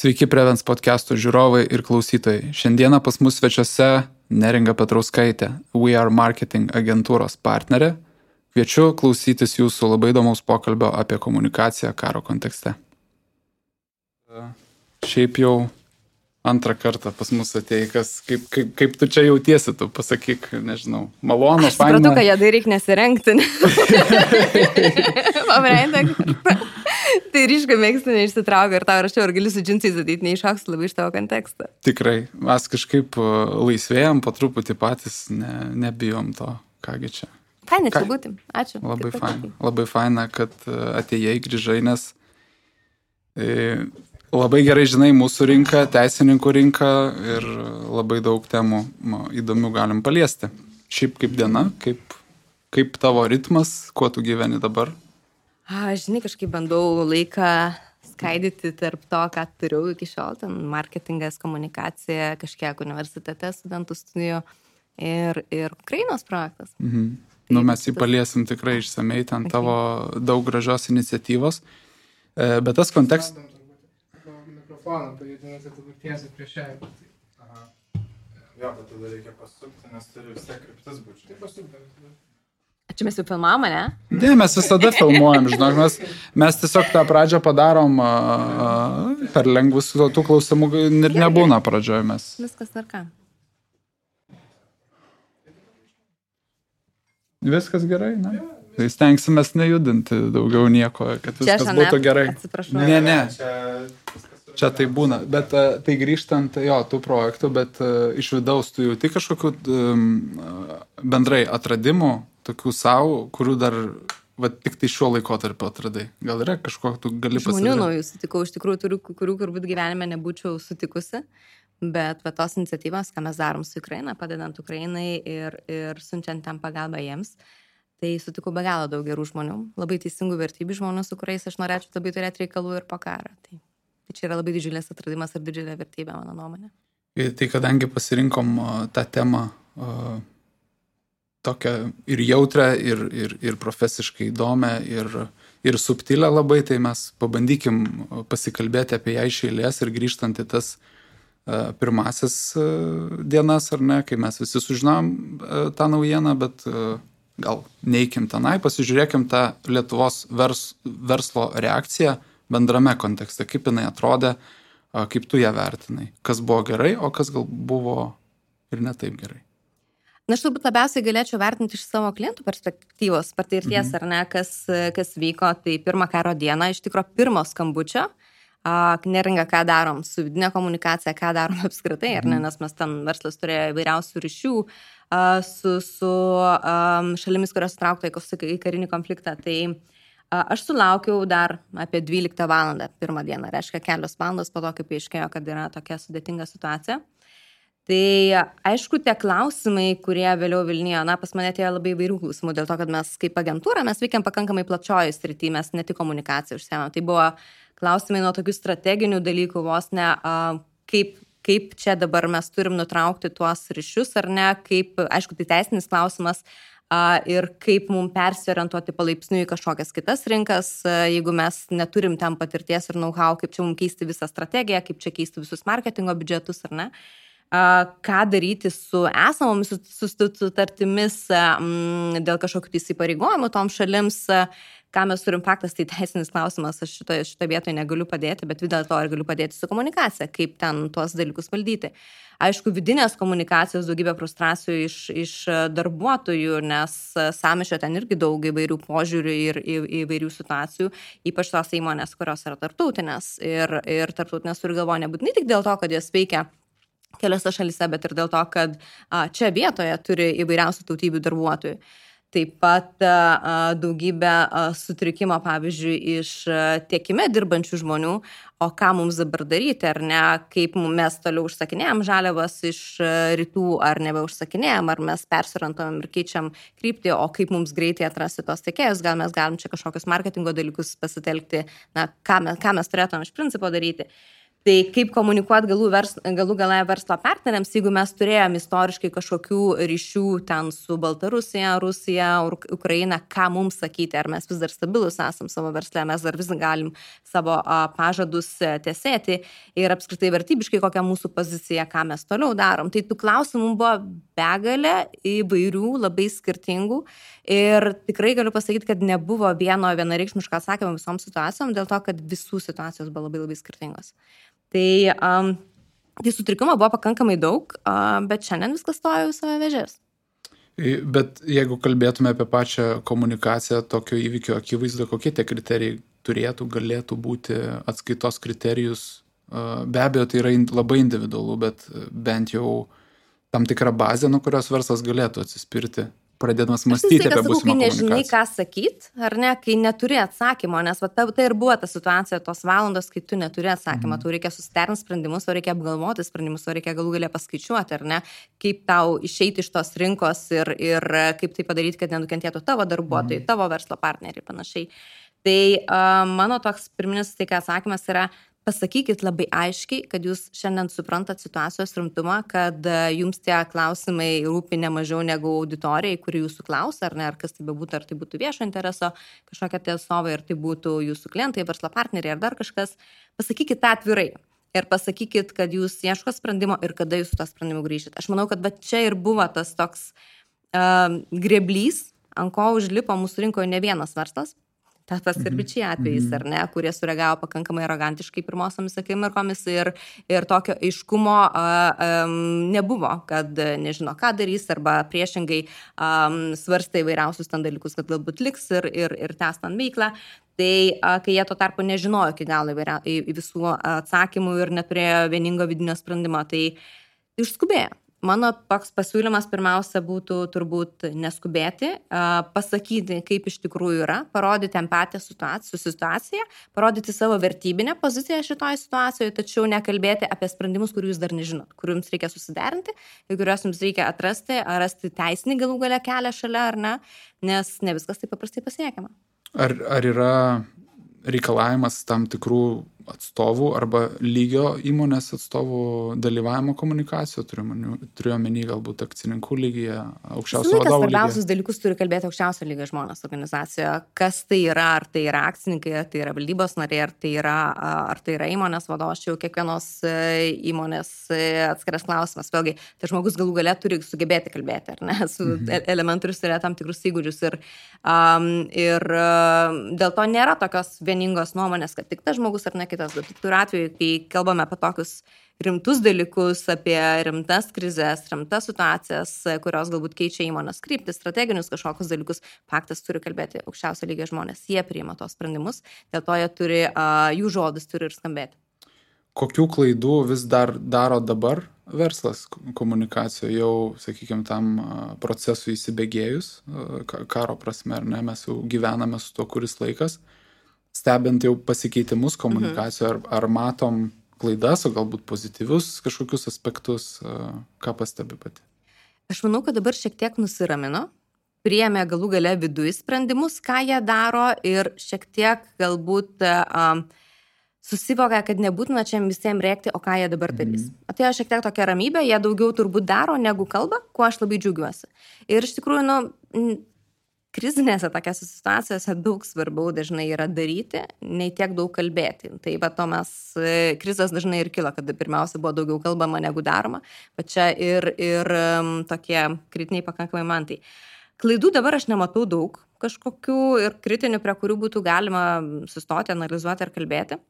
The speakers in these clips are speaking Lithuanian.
Sveiki Prevens podcast'o žiūrovai ir klausytojai. Šiandieną pas mus svečiuose Neringa Petrauskaitė, We Are Marketing agentūros partnerė. Kviečiu klausytis jūsų labai įdomaus pokalbio apie komunikaciją karo kontekste. Šiaip jau antrą kartą pas mus atėjai, kaip tu čia jautiesi, tu pasakyk, nežinau, malonu, faina. Aš supratau, kad jadai reikia nesirengti. Tai ryškai mėgstu neišsitraukia ir tau rašiau, ar gali su džinsais ateit, neiššoks labai iš tavo kontekstą. Tikrai, mes kažkaip laisvėjom, po truputį patys, nebijom to, kągi čia. Faina čia būti, ačiū. Labai faina, kad atėjai, grįžai, nes labai gerai žinai mūsų rinką, teisininkų rinką ir labai daug temų įdomių galim paliesti. Šiaip kaip diena, kaip tavo ritmas, kuo tu gyveni dabar? Žinai, kažkaip bandau laiką skaidyti tarp to, ką turiu iki šiol, ten marketingas, komunikacija, kažkiek universitete studentų studijų ir Ukrainos projektas. Mes jį paliesim tikrai išsamei, ten tavo daug gražios iniciatyvos, bet tas kontekstas... Mikrofoną pajudinasi, tu tiesiai prieš ją. Jo, bet tada reikia pasukti, nes turi vis tiek kryptis būti. Tai pasukti. Čia mes jau filmavom, ne? Ne, mes visada filmuojam, žinok, mes tiesiog tą pradžią padarom per lengvus, tų klausimų ir nebūna pradžioje mes. Viskas tvarka. Viskas gerai, ne? Tai stengsimės nejudinti daugiau nieko, kad viskas būtų gerai. Atsiprašau. Ne. Čia tai būna, bet tai grįžtant, tų projektų, bet iš vidaus tu jauti kažkokių bendrai atradimų, tokių savo, kurių dar tik tai šiuo laikotarpiu atradai. Gal yra kažko, tu gali pasakyti? Žmonių naujų sutikau, iš tikrųjų turiu, kurių turbūt gyvenime nebūčiau sutikusi, bet tos iniciatyvos, ką mes darom su Ukraina, padedant Ukrainai ir siunčiant ten pagalbą jiems, tai sutikau be galo daug gerų žmonių, labai teisingų vertybių žmonių, su kuriais aš norėčiau labai turėti reikalų ir po karą. Tai čia yra labai didžiulės atradimas ir didžiulė vertybė, mano nuomonė. Tai kadangi pasirinkom tą temą tokią ir jautrę, ir profesiškai įdomią, ir subtilę labai, tai mes pabandykim pasikalbėti apie ją iš eilės ir grįžtant į tas pirmasis dienas, ar ne, kai mes visi sužinom tą naujieną, bet gal neikim tenai, pasižiūrėkim tą Lietuvos verslo reakciją bendrame kontekste, kaip jinai atrodė, kaip tu ją vertinai, kas buvo gerai, o kas gal buvo ir ne taip gerai. Na, aš turbūt labiausiai galėčiau vertinti iš savo klientų perspektyvos, patirties, ar ne, kas vyko, tai pirmą karo dieną, iš tikro pirmo skambučio, Neringa, ką darom su vidinė komunikacija, ką darom apskritai, ar ne, nes mes ten verslas turėjo įvairiausių ryšių su šalimis, kurios traukta į karinį konfliktą, tai aš sulaukiau dar apie 12 valandą pirmą dieną, reiškia kelios valandos po to, kaip aiškėjo, kad yra tokia sudėtinga situacija. Tai aišku, tie klausimai, kurie vėliau Vilniuje, pas mane atėjo labai įvairių klausimų, dėl to, kad mes kaip agentūra, mes veikiam pakankamai plačioji srity, mes ne tik komunikaciją užsiemėm. Tai buvo klausimai nuo tokių strateginių dalykų, vos ne, kaip čia dabar mes turim nutraukti tuos ryšius, ar ne, kaip, aišku, tai teisinis klausimas, ir kaip mums persiorientuoti palaipsniui į kažkokias kitas rinkas, jeigu mes neturim ten patirties ir know-how, kaip čia mums keisti visą strategiją, kaip čia keisti visus marketingo biudžetus, ar ne. Ką daryti su esamomis sutartimis dėl kažkokių įsipareigojimų tom šalims, ką mes turim faktas, tai teisinis klausimas, aš šitoje vietoje negaliu padėti, bet vis dėlto ir galiu padėti su komunikacija, kaip ten tuos dalykus valdyti. Aišku, vidinės komunikacijos daugybė frustracijų iš darbuotojų, nes sąmyšio ten irgi daug įvairių požiūrių ir įvairių situacijų, ypač tos įmonės, kurios yra tarptautinės ir tarptautinės turi galvoje nebūtinai tik dėl to, kad jos veikia keliose šalyse, bet ir dėl to, kad čia vietoje turi įvairiausių tautybių darbuotojų. Taip pat daugybė sutrikimo, pavyzdžiui, iš tiekime dirbančių žmonių, o ką mums dabar daryti, ar ne, kaip mes toliau užsakinėjom žaliavas iš rytų, ar nebeužsakinėjom, ar mes persiorientuojam ir keičiam kryptį, o kaip mums greitai atrasti tos tiekėjus, gal mes galim čia kažkokius marketingo dalykus pasitelkti, ką mes turėtume iš principo daryti. Tai kaip komunikuoti galų gale verslo partneriams, jeigu mes turėjom istoriškai kažkokių ryšių ten su Baltarusija, Rusija, Ukraina, ką mums sakyti, ar mes vis dar stabilus esam savo versle, mes dar vis galim savo pažadus tesėti ir apskritai vertybiškai kokia mūsų pozicija, ką mes toliau darom. Tai tų klausimų buvo begalė įvairių, labai skirtingų ir tikrai galiu pasakyti, kad nebuvo vienareikšmiško atsakymo visom situacijom, dėl to, kad visų situacijos buvo labai skirtingos. Tai sutrikimo buvo pakankamai daug, bet šiandien viskas stoja į savo vėžės. Bet jeigu kalbėtume apie pačią komunikaciją tokio įvykio akivaizdu, kokie tie kriterijai galėtų būti atskaitos kriterijus, be abejo tai yra labai individualu, bet bent jau tam tikra bazė, nuo kurios verslas galėtų atsispirti, pradėdamas mąstyti apie būsimą komunikaciją. Kai nežinai, ką sakyt, ar ne, kai neturi atsakymo, nes tai ir buvo ta situacija, tos valandos, kai tu neturi atsakymą, tau reikia susiderinti sprendimus, tau reikia apgalvoti sprendimus, tau reikia galų galę paskaičiuoti, ar ne, kaip tau išeiti iš tos rinkos ir kaip tai padaryti, kad nenukentėtų tavo darbuotojai, tavo verslo partneriai, panašiai. Tai mano toks pirminis atsakymas yra, pasakykit labai aiškiai, kad jūs šiandien suprantat situacijos rimtumą, kad jums tie klausimai rūpi ne mažiau negu auditorijai, kuri jūsų klausia, ar ne, ar kas tai bebūtų, ar tai būtų viešo intereso kažkokia tie atstovai, ar tai būtų jūsų klientai, verslo partneriai, ar dar kažkas. Pasakykit tą atvirai ir pasakykit, kad jūs ieško sprendimo ir kada jūs su to sprendimu grįšit. Aš manau, kad čia ir buvo tas toks greblys, ant ko užlipo mūsų rinkoje ne vienas verslas. Tas ir bičiai atvejais, ar ne, kurie sureagavo pakankamai arogantiškai pirmosiomis akimirkomis ir tokio aiškumo nebuvo, kad nežino, ką darys, arba priešingai svarstė įvairiausius ten dalykus, kad galbūt liks ir tęs ten veiklą. Tai kai jie tuo tarpu nežinojo iki galo visų atsakymų ir neturėjo vieningo vidinio sprendimo, tai išskubėjo. Mano toks pasiūlymas pirmiausia būtų turbūt neskubėti, pasakyti, kaip iš tikrųjų yra, parodyti empatiją su situacija, parodyti savo vertybinę poziciją šitoje situacijoje, tačiau nekalbėti apie sprendimus, kurių jūs dar nežinot, kurių jums reikia susiderinti, kuriuos jums reikia atrasti, ar rasti teisinį galų galę kelią šalia ar ne, nes ne viskas taip paprastai pasiekiama. Ar yra reikalavimas tam tikrų atstovų arba lygio įmonės atstovų dalyvavimo komunikacijoje, turiu omeny galbūt akcininkų lygyje, aukščiausio vadovų lygyje. Svarbiausius dalykus turi kalbėti aukščiausio lygio žmonės organizacijoje. Kas tai yra, ar tai yra akcininkai, ar tai yra valdybos nariai, ar tai yra įmonės vadovas, čia jau kiekvienos įmonės atskiras klausimas. Vėlgi, tai žmogus galų gale turi sugebėti kalbėti, ar ne, su elementorius turėjo tam tikrus įgūdžius ir dėl to nėra tokios vieningos nuomonės, kad tik tas žmogus ar ne kitas. Bet turiu atveju, kai kalbame apie tokius rimtus dalykus, apie rimtas krizės, rimtas situacijas, kurios galbūt keičia įmonės kryptis, strateginius kažkokius dalykus, faktas turi kalbėti aukščiausio lygio žmonės. Jie priima tos sprendimus, dėl to jų žodis turi ir skambėti. Kokių klaidų vis dar daro dabar verslas komunikacijoje, jau, sakykime, tam procesui įsibėgėjus, karo prasme, ar ne, mes jau gyvename su tuo kuris laikas. Stebint jau pasikeitimus komunikacijoje, ar matom klaidas, o galbūt pozityvius kažkokius aspektus, ką pastebi pati? Aš manau, kad dabar šiek tiek nusiramino, priėmė galų gale viduje sprendimus, ką jie daro ir šiek tiek galbūt susivokia, kad nebūtina čia visiems rėkti, o ką jie dabar darys. Atėjo šiek tiek tokia ramybė, jie daugiau turbūt daro negu kalba, kuo aš labai džiaugiuosi. Ir iš tikrųjų, krizinėse tokiose situacijose daug svarbiau dažnai yra daryti, nei tiek daug kalbėti. Tai to mes, krizės dažnai ir kilo, kad pirmiausia buvo daugiau kalbama negu daroma, bet čia ir tokie kritiniai pakankamai mantai. Klaidų dabar aš nematau daug kažkokių ir kritinių, prie kurių būtų galima sustoti, analizuoti ar kalbėti.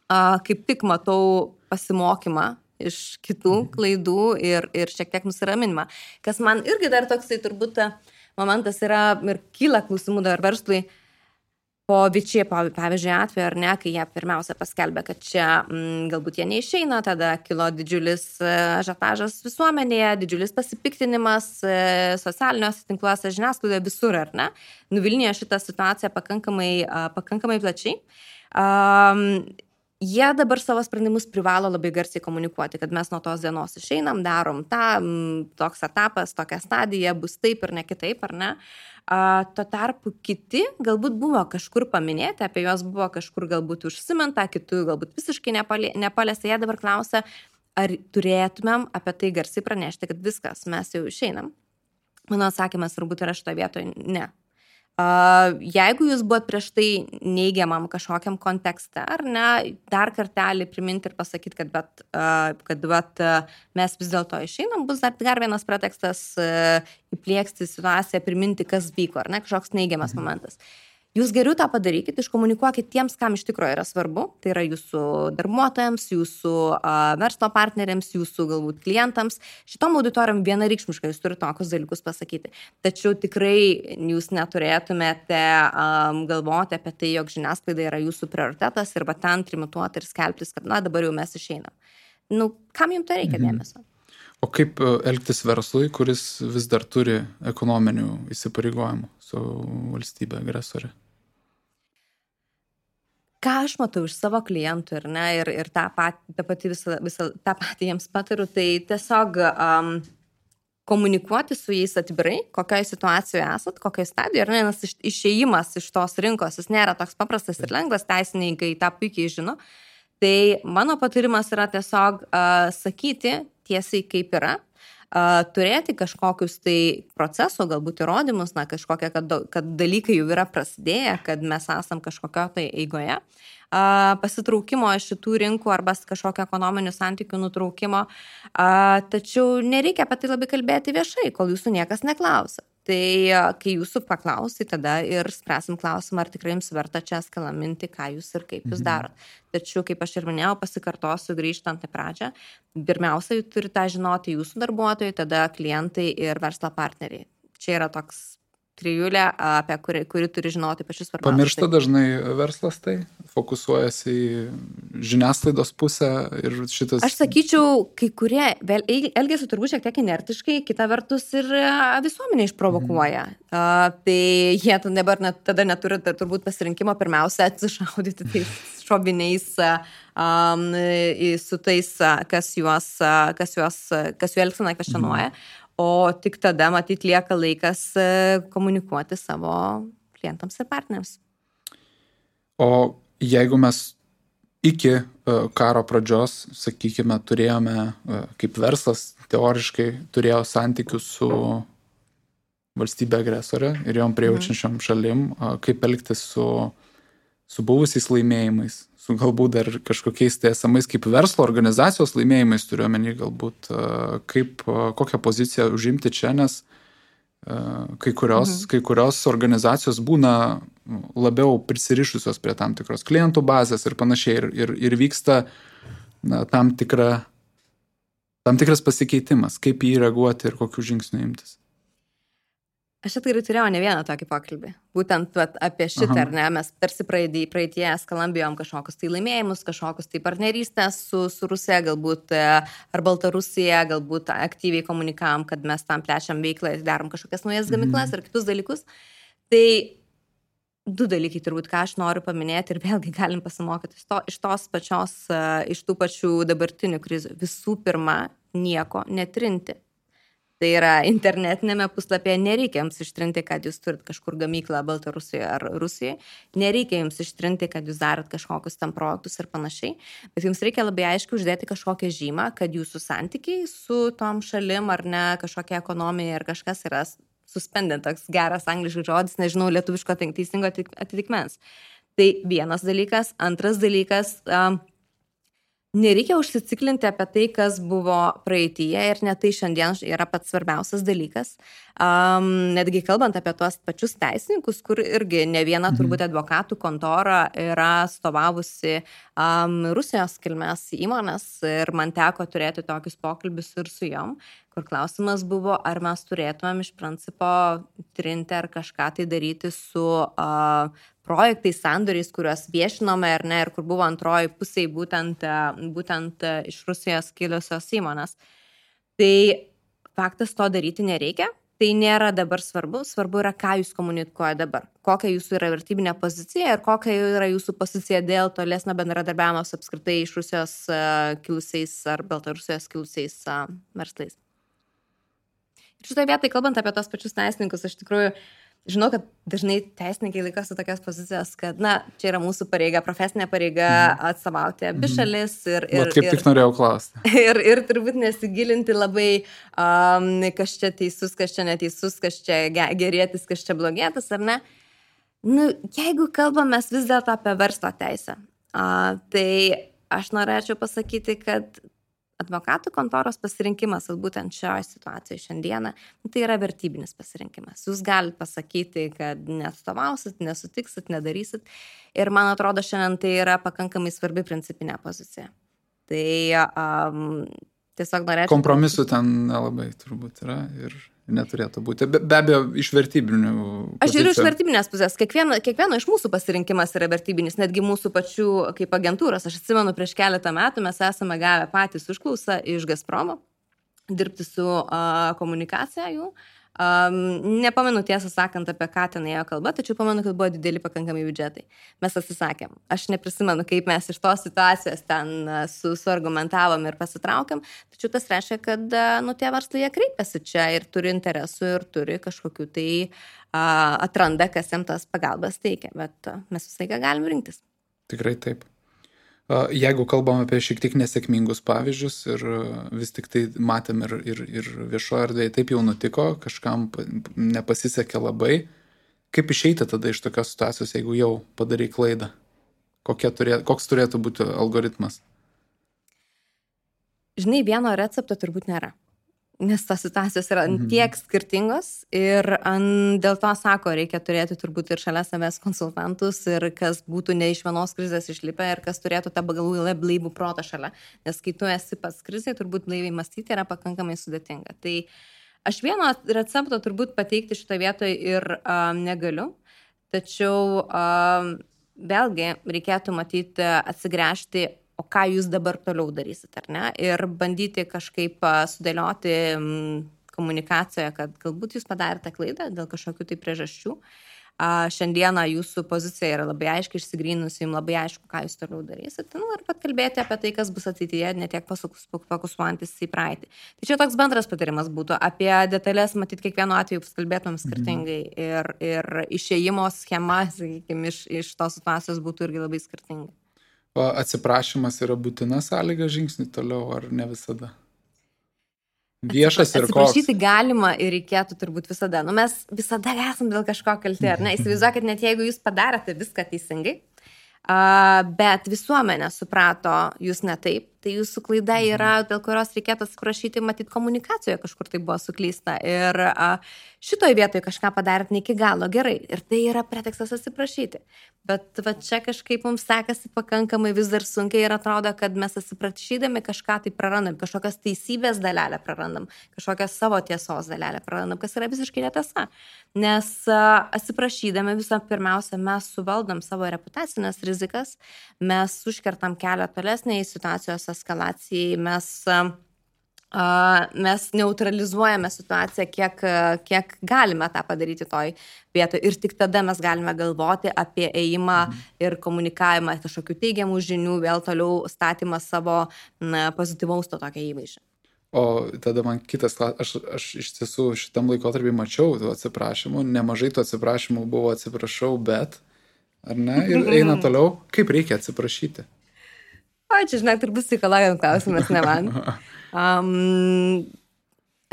Kaip tik matau pasimokymą iš kitų klaidų ir šiek tiek nusiraminimą. Kas man irgi dar toksai turbūt momentas yra ir kyla klausimų dar verslui po Vičiai, pavyzdžiui, atveju, ar ne, kai jie pirmiausia paskelbė, kad čia galbūt jie neišeina, tada kilo didžiulis ažiotažas visuomenėje, didžiulis pasipiktinimas socialiniuose tinkluose, žiniasklaidoje, visur, ar ne. Nuvilnijo šitą situaciją pakankamai plačiai. jie dabar savo sprendimus privalo labai garsiai komunikuoti, kad mes nuo tos dienos išeinam, darom tą, toks etapas, tokia stadija, bus taip ir ne kitaip, ar ne? Tuo tarpu kiti galbūt buvo kažkur paminėti, apie juos buvo kažkur galbūt užsiminta, kitų galbūt visiškai nepalėsta. Jie dabar klausia, ar turėtumėm apie tai garsiai pranešti, kad viskas, mes jau išeinam. Mano atsakymas turbūt yra šitoje vietoje ne. Jeigu jūs buvot prieš tai neigiamam kažkokiam kontekste, ar ne, dar kartelį priminti ir pasakyti, kad mes vis dėlto išeinam, bus dar vienas pretekstas įplieksti situaciją, priminti, kas vyko, ar ne, kažkoks neigiamas momentas. Jūs geriau tą padarykit, iškomunikuokit tiems, kam iš tikrųjų yra svarbu, tai yra jūsų darbuotojams, jūsų verslo partneriams, jūsų galbūt klientams. Šitom auditorijom vienareikšmiškai jūs turite tokius dalykus pasakyti. Tačiau tikrai jūs neturėtumėte galvoti apie tai, jog žiniasklaida yra jūsų prioritetas ir ten trimituoti ir skelbtis, kad dabar jau mes išeinam. Kam jums tai reikia dėmesio? O kaip elgtis verslui, kuris vis dar turi ekonominių įsipareigojimų su valstybė agresorė? Ką aš matau iš savo klientų ir tą patį jiems patariu, tai tiesiog komunikuoti su jais atvirai, kokioje situacijoje esat, kokioje stadijoje, nes išėjimas iš tos rinkos, jis nėra toks paprastas ir lengvas, teisininkai tą puikiai žino. Tai mano patarimas yra tiesiog sakyti tiesiai kaip yra, turėti kažkokius tai proceso, galbūt įrodymus, kažkokie, kad dalykai jau yra prasidėję, kad mes esam kažkokio tai eigoje, pasitraukimo iš šitų rinkų arba kažkokio ekonominių santykių nutraukimo, tačiau nereikia apie tai labai kalbėti viešai, kol jūsų niekas neklausia. Tai kai jūsų paklausi, tada ir spręsim klausimą, ar tikrai jums verta čia skalaminti, ką jūs ir kaip jūs darot. Tačiau, kaip aš ir minėjau, pasikartosiu grįžtant į pradžią, pirmiausia, turi tą žinoti jūsų darbuotojai, tada klientai ir verslo partneriai. Čia yra toks trijulė, apie kuri turi žinoti pačius svarbiausius. Pamiršta dažnai verslas tai, fokusuojasi į žiniasklaidos pusę ir šitas... Aš sakyčiau, kai kurie elgiasi turbūt šiek tiek inertiškai, kita vertus ir visuomenė išprovokuoja. Tai jie tada neturi turbūt pasirinkimo pirmiausia atsišaudyti tais šoviniais su tais, kas jų elgseną kvestionuoja. O tik tada, matyt, lieka laikas komunikuoti savo klientams ir partneriams. O jeigu mes iki karo pradžios, sakykime, turėjome, kaip verslas teoriškai turėjo santykius su valstybė agresorė ir jom prijaučiančiom šalim, kaip elgtis su buvusiais laimėjimais, su galbūt dar kažkokiais tai esamais kaip verslo organizacijos laimėjimais, turiuomenį galbūt, kokią poziciją užimti čia, nes kai kurios organizacijos būna labiau prisirišusios prie tam tikros klientų bazės ir panašiai ir vyksta tam tikras pasikeitimas, kaip jį reaguoti ir kokių žingsnių imtis. Aš tikrai turėjau ne vieną tokį pokalbį. Būtent apie šitą, ar ne, mes tarsi praeitie skalambijom kažkokius tai laimėjimus, kažkokius tai partnerystės su Rusija, galbūt ar Baltarusija, galbūt aktyviai komunikavom, kad mes tam plečiam veiklą ir darom kažkokias naujas gamyklas ir kitus dalykus. Tai du dalykai turbūt, ką aš noriu paminėti ir vėlgi galim pasimokyti iš tų pačių dabartinių krizių. Visų pirma, nieko netrinti. Tai yra internetinėme puslapyje nereikia jums ištrinti, kad jūs turit kažkur gamyklą Baltarusijoje ar Rusijoje. Nereikia jums ištrinti, kad jūs darot kažkokius tam projektus ir panašiai. Bet jums reikia labai aiškiai uždėti kažkokią žymą, kad jūsų santykiai su tom šalim ar ne kažkokia ekonomija ir kažkas yra suspended, toks geras angliškas žodis, nežinau lietuviško teisingo atitikmens. Tai vienas dalykas. Antras dalykas... Nereikia užsiciklinti apie tai, kas buvo praeityje ir net tai šiandien yra pats svarbiausias dalykas. Netgi kalbant apie tuos pačius teisininkus, kur irgi ne viena turbūt advokatų kontora yra atstovavusi Rusijos kilmės įmonės ir man teko turėti tokius pokalbius ir su jom, kur klausimas buvo, ar mes turėtumėm iš principo trinti ar kažką tai daryti su projektais, sandoriais, kuriuos viešinome ar ne, ir kur buvo antroji pusėje būtent iš Rusijos kilusios įmonės. Tai faktas to daryti nereikia. tai nėra dabar svarbu yra, ką jūs komunikuoja dabar, kokia jūsų yra vertybinė pozicija ir kokia yra jūsų pozicija dėl tolesnio bendradarbiavimo su apskritai iš Rusijos kilusiais ar Baltarusijos kilusiais verslais. Ir šitoje vietoje, kalbant apie tos pačius teisininkus, aš tikrųjų žinau, kad dažnai teisininkai laikosi tokios pozicijos, kad, čia yra mūsų pareiga, profesinė pareiga atstovauti abi šalis. Kaip tik norėjau klausti. Ir turbūt nesigilinti labai, kas čia teisus, kas čia neteisus, kas čia gerėtis, kas čia blogėtis, ar ne? Jeigu kalbam mes vis dėlto apie verslo teisę, tai aš norėčiau pasakyti, kad advokatų kontoros pasirinkimas, būtent šioje situacijoje šiandieną, tai yra vertybinis pasirinkimas. Jūs galite pasakyti, kad neatstovausit, nesutiksit, nedarysit. Ir man atrodo, šiandien tai yra pakankamai svarbi principinė pozicija. Tai tiesiog norėčiau... Kompromisų ten nelabai turbūt yra ir neturėtų būti. Be abejo, iš vertybinių pozicijų. Aš žiūriu iš vertybinės pusės. Kiekvieno iš mūsų pasirinkimas yra vertybinis, netgi mūsų pačių kaip agentūros. Aš atsimenu, prieš keletą metų mes esame gavę patys užklausą iš Gazpromo dirbti su komunikacija jų. Nepamenu tiesą sakant, apie ką ten ėjo kalba, tačiau pamenu, kad buvo dideli pakankamai biudžetai. Mes atsisakėm. Aš neprisimenu, kaip mes iš tos situacijos ten suargumentavom ir pasitraukėm, tačiau tas reiškia, kad tie verslai jie kreipiasi čia ir turi interesų ir turi kažkokių tai atranda, kas jam tas pagalbas teikia, bet mes visą laiką galim rinktis. Tikrai taip. Jeigu kalbam apie šiek tiek nesėkmingus pavyzdžius ir vis tik tai matėm ir viešoje erdvėje taip jau nutiko, kažkam nepasisekė labai, kaip išeiti tada iš tokios situacijos, jeigu jau padarai klaidą? Koks turėtų būti algoritmas? Žinai, vieno recepto turbūt nėra. Nes tos situacijos yra tiek skirtingos ir dėl to sako, reikia turėti turbūt ir šalia savęs konsultantus ir kas būtų ne iš vienos krizės išlipę ir kas turėtų tą blaivų protą šalia. Nes kai tu esi pats krizėje, turbūt blaiviai mąstyti yra pakankamai sudėtinga. Tai aš vieno recepto turbūt pateikti šitą vietą ir negaliu, tačiau vėlgi reikėtų matyti atsigręžti, o ką jūs dabar toliau darysit, ar ne? Ir bandyti kažkaip sudėlioti komunikacijoje, kad galbūt jūs padarėte klaidą dėl kažkokių tai priežasčių. Šiandieną jūsų pozicija yra labai aiškiai išsigrynusi, jums labai aišku, ką jūs toliau darysit. Ir pat kalbėti apie tai, kas bus ateityje, ne tiek fokusuojantis į praeitį. Tai čia toks bendras patarimas būtų. Apie detalės, matyt, kiekvienu atveju kalbėtumėm skirtingai. Ir išėjimo schema, sakykime, iš tos situacijos būtų irgi labai skirtinga. Atsiprašymas yra būtina sąlyga žingsnį toliau, ar ne visada? Viešas ir koks? Atsiprašyti galima ir reikėtų turbūt visada. Mes visada esam dėl kažko kalti, ar ne? Įsivaizduokit, net jeigu jūs padarėte viską teisingai, bet visuomenė suprato jūs ne taip, tai jūsų klaida yra, dėl kurios reikėtų atsiprašyti, matyt, komunikacijoje kažkur tai buvo suklysta. Ir šitoje vietoje kažką padarėt ne iki galo gerai. Ir tai yra pretekstas atsiprašyti. Bet čia kažkaip mums sekasi pakankamai vis dar sunkiai ir atrodo, kad mes atsiprašydami kažką tai prarandam, kažkokios teisybės dalelę prarandam, kažkokios savo tiesos dalelę prarandam, kas yra visiškai netiesa. Nes atsiprašydami visą pirmiausia, mes suvaldom savo reputacinės rizikas, mes užkertam kelią tolesniai situacijos eskalacijai, mes neutralizuojame situaciją, kiek galime tą padaryti toj vietoje ir tik tada mes galime galvoti apie ėjimą ir komunikavimą kažkokių teigiamų žinių, vėl toliau statymą savo pozityvaus to tokio įvaizdžio. O tada man kitas klausimas, aš iš tiesų šitam laikotarpį mačiau tų atsiprašymų, nemažai tų atsiprašymų buvo atsiprašau, bet, ar ne, ir eina toliau, kaip reikia atsiprašyti? O, čia, žinok, turbūt psichologijos klausimas, ne man.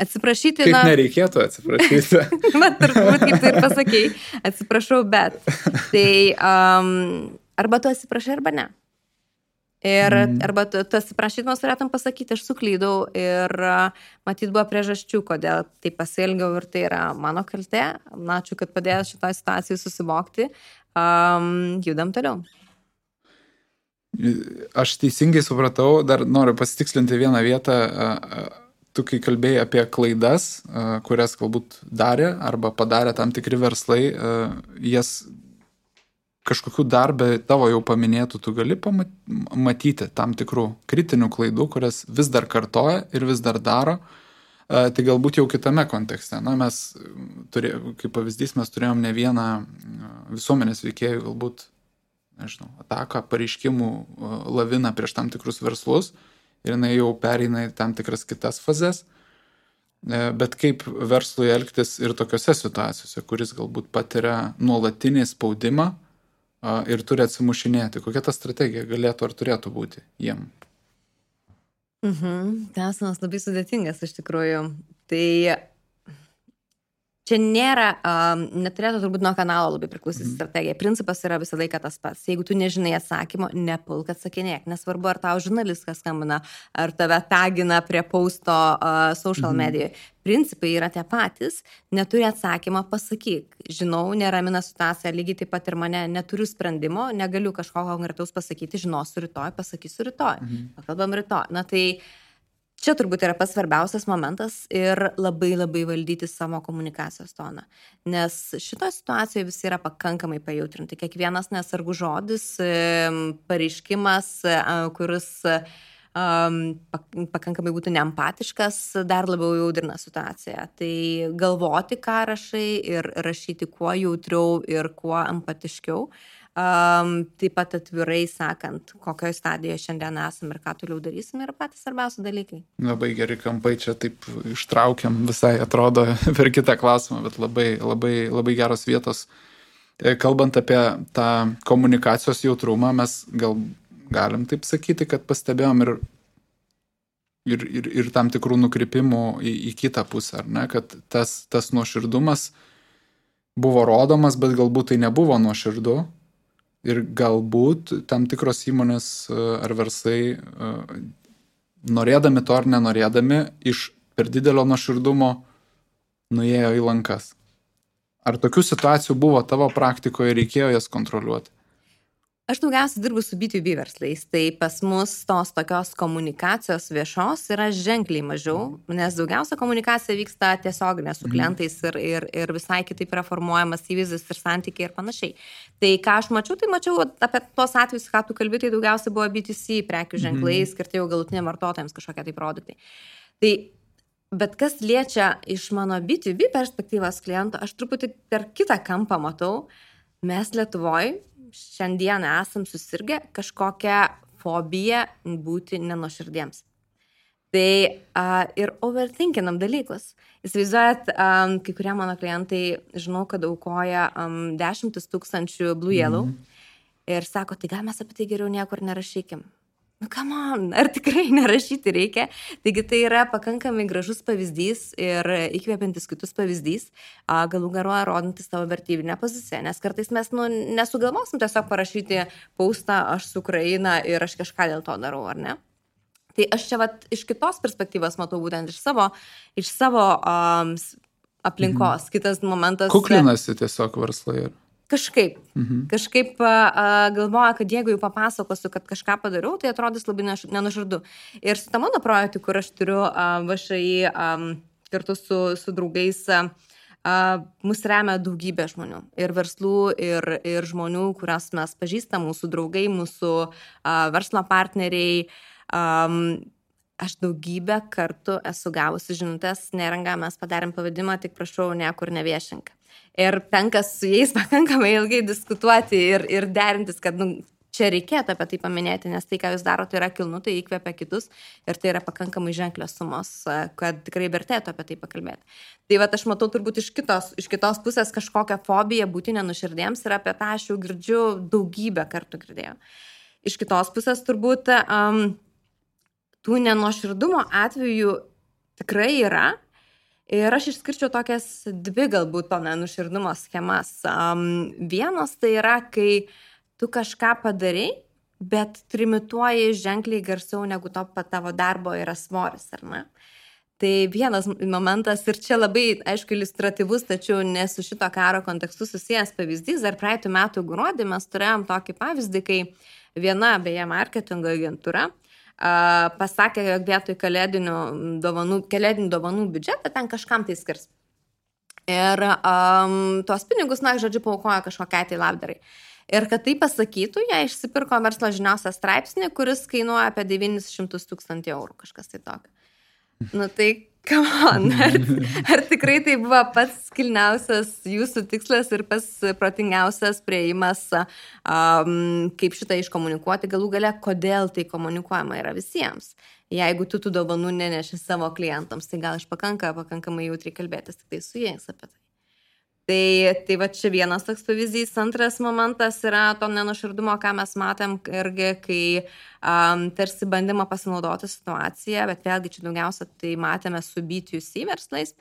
Atsiprašyti, kaip nereikėtų atsiprašyti. Turbūt, kaip tu ir pasakei, atsiprašau, bet. Tai arba tu atsiprašai, arba ne. Ir arba tu atsiprašydamas turėtum pasakyti, aš suklydau ir matyt buvo priežasčių, kodėl tai pasielgiau ir tai yra mano kaltė. Ačiū, kad padėjai šitoj situacijai susivokti. Judam toliau. Aš teisingai supratau, dar noriu pasitikslinti vieną vietą, tu kai kalbėjai apie klaidas, kurias galbūt darė arba padarė tam tikri verslai, jas kažkokių darbę tavo jau paminėtų, tu gali matyti tam tikrų kritinių klaidų, kurias vis dar kartoja ir vis dar daro. Tai galbūt jau kitame kontekste. Na, mes, kaip pavyzdys, mes turėjom ne vieną visuomenės veikėjų, galbūt, nežinau, ataką, pareiškimų laviną prieš tam tikrus verslus ir jinai jau pereina į tam tikras kitas fazes. Bet kaip verslui elgtis ir tokiose situacijose, kuris galbūt patiria nuolatinį spaudimą ir turi atsimušinėti. Kokia ta strategija galėtų ar turėtų būti jiem? Klausimas labai sudėtingas iš tikrųjų. Tai čia nėra, neturėtų turbūt nuo kanalo labai priklausyti strategija. Principas yra visą laiką tas pats. Jeigu tu nežinai atsakymo, nepulk atsakinėk. Nesvarbu, ar tau žurnalistas skambina, ar tave tagina prie posto social medijoje. Principai yra tie patys. Neturi atsakymą, pasakyk. Žinau, neramina situacija, lygiai taip pat ir mane, neturiu sprendimo, negaliu kažko konkretaus pasakyti, žinosiu rytoj, pasakysiu rytoj. Pakalbam rytoj. Na tai čia turbūt yra pats svarbiausias momentas ir labai valdyti savo komunikacijos toną. Nes šitoje situacijoje visi yra pakankamai pajautrinti. Kiekvienas nesargus žodis, pareiškimas, kuris pakankamai būtų neempatiškas, dar labiau jaudrina situaciją. Tai galvoti, ką rašai ir rašyti kuo jautriau ir kuo empatiškiau. Taip pat atvirai sakant, kokioje stadijoje šiandien esame ir ką toliau darysime, yra patys svarbiausi dalykai. Labai geri kampai, čia taip ištraukiam visai, atrodo, per kitą klausimą, bet labai geros vietos. Kalbant apie tą komunikacijos jautrumą, mes galim taip sakyti, kad pastebėjom ir tam tikrų nukrypimų į kitą pusę, ar ne? Kad tas nuoširdumas buvo rodomas, bet galbūt tai nebuvo nuoširdu. Ir galbūt tam tikros įmonės ar verslai, norėdami to ar nenorėdami, iš per didelio nuoširdumo nuėjo į lankas. Ar tokių situacijų buvo tavo praktikoje ir reikėjo jas kontroliuoti? Aš daugiausiai dirbu su B2B verslais, tai pas mus tos tokios komunikacijos viešos yra ženkliai mažiau, nes daugiausia komunikacija vyksta tiesioginė su klientais ir visai kitaip yra formuojamas įvaizdis ir santykiai ir panašiai. Tai ką aš mačiau, apie tuos atvejus, ką tu kalbi, tai daugiausiai buvo B2C prekių ženklai, skirti jau galutiniam vartotojams kažkokie tai produktai. Bet kas liečia iš mano B2B perspektyvos kliento, aš truputį per kitą kampą matau, mes Lietuvoje šiandien esam susirgę kažkokią fobiją būti nenuoširdiems. Tai ir overthinkinam dalykus. Įsivaizduojat, kai kurie mano klientai, žinau, kad aukoja 10 000 Blue Yellow ir sako, tai gal mes apie tai geriau niekur nerašykim. Nu, come on, ar tikrai nerašyti reikia? Taigi tai yra pakankamai gražus pavyzdys ir įkvėpiantis kitus pavyzdys, galų garuoja rodantis savo vertybinę poziciją, nes kartais mes nesugalvosim tiesiog parašyti postą aš su Ukraina ir aš kažką dėl to darau, ar ne? Tai aš čia iš kitos perspektyvos matau būtent iš savo aplinkos. Kitas momentas. Kuklinasi tiesiog verslai. Kažkaip galvoja, kad jeigu jau papasakosiu, kad kažką padariau, tai atrodys labai nenuoširdu. Ir su ta mano projektu, kur aš turiu VŠI kartu su draugais, mus remia daugybė žmonių. Ir verslų, ir žmonių, kurias mes pažįstam, mūsų draugai, mūsų verslo partneriai. Aš daugybę kartų esu gavusi žinutės, Neringa, mes padarėm pavadimą, tik prašau, niekur neviešink. Ir tenka su jais pakankamai ilgai diskutuoti ir derintis, kad čia reikėtų apie tai paminėti, nes tai, ką jūs darote, yra kilnu, tai įkvepia kitus ir tai yra pakankamai ženklios sumos, kad tikrai vertėtų apie tai pakalbėti. Tai aš matau turbūt iš kitos pusės kažkokią fobiją būti nenuoširdiems ir apie tą aš jau girdžiu daugybę kartų girdėjau. Iš kitos pusės turbūt tų nenuoširdumo atvejų tikrai yra. Ir aš išskirčiau tokias dvi galbūt to nenuoširdumo schemas. Vienas tai yra, kai tu kažką padarai, bet trimituoji ženkliai garsiau negu tavo darbo yra svoris, ar ne? Tai vienas momentas ir čia labai, aišku, iliustratyvus, tačiau ne su šito karo kontekstu susijęs pavyzdys. Dar praeitų metų gruodį mes turėjom tokį pavyzdį, kai viena, beje, marketingo agentūra pasakė, jog vietoj kalėdinių dovanų biudžetą ten kažkam tai skirs. Ir tuos pinigus, žodžiu, paaukojo kažkokiai tai labdarai. Ir kad tai pasakytų, jie išsipirko verslo žiniausią straipsnį, kuris kainuoja apie 900 000 eurų, kažkas tai tokio. Tai Come on, ar tikrai tai buvo pats kilniausias jūsų tikslas ir pats protingiausias prieimas, kaip šitą iškomunikuoti, galų gale, kodėl tai komunikuojama yra visiems. Jeigu tu tų dovanų neneši savo klientams, tai gal pakankamai jautriai kalbėtis tik tai su jais apie tai. Tai va čia vienas toks pavyzdys. Antras momentas yra to nenuoširdumo, ką mes matėm irgi, kai tarsi bandymą pasinaudoti situaciją, bet vėlgi čia daugiausia tai matėme su B2C verslais,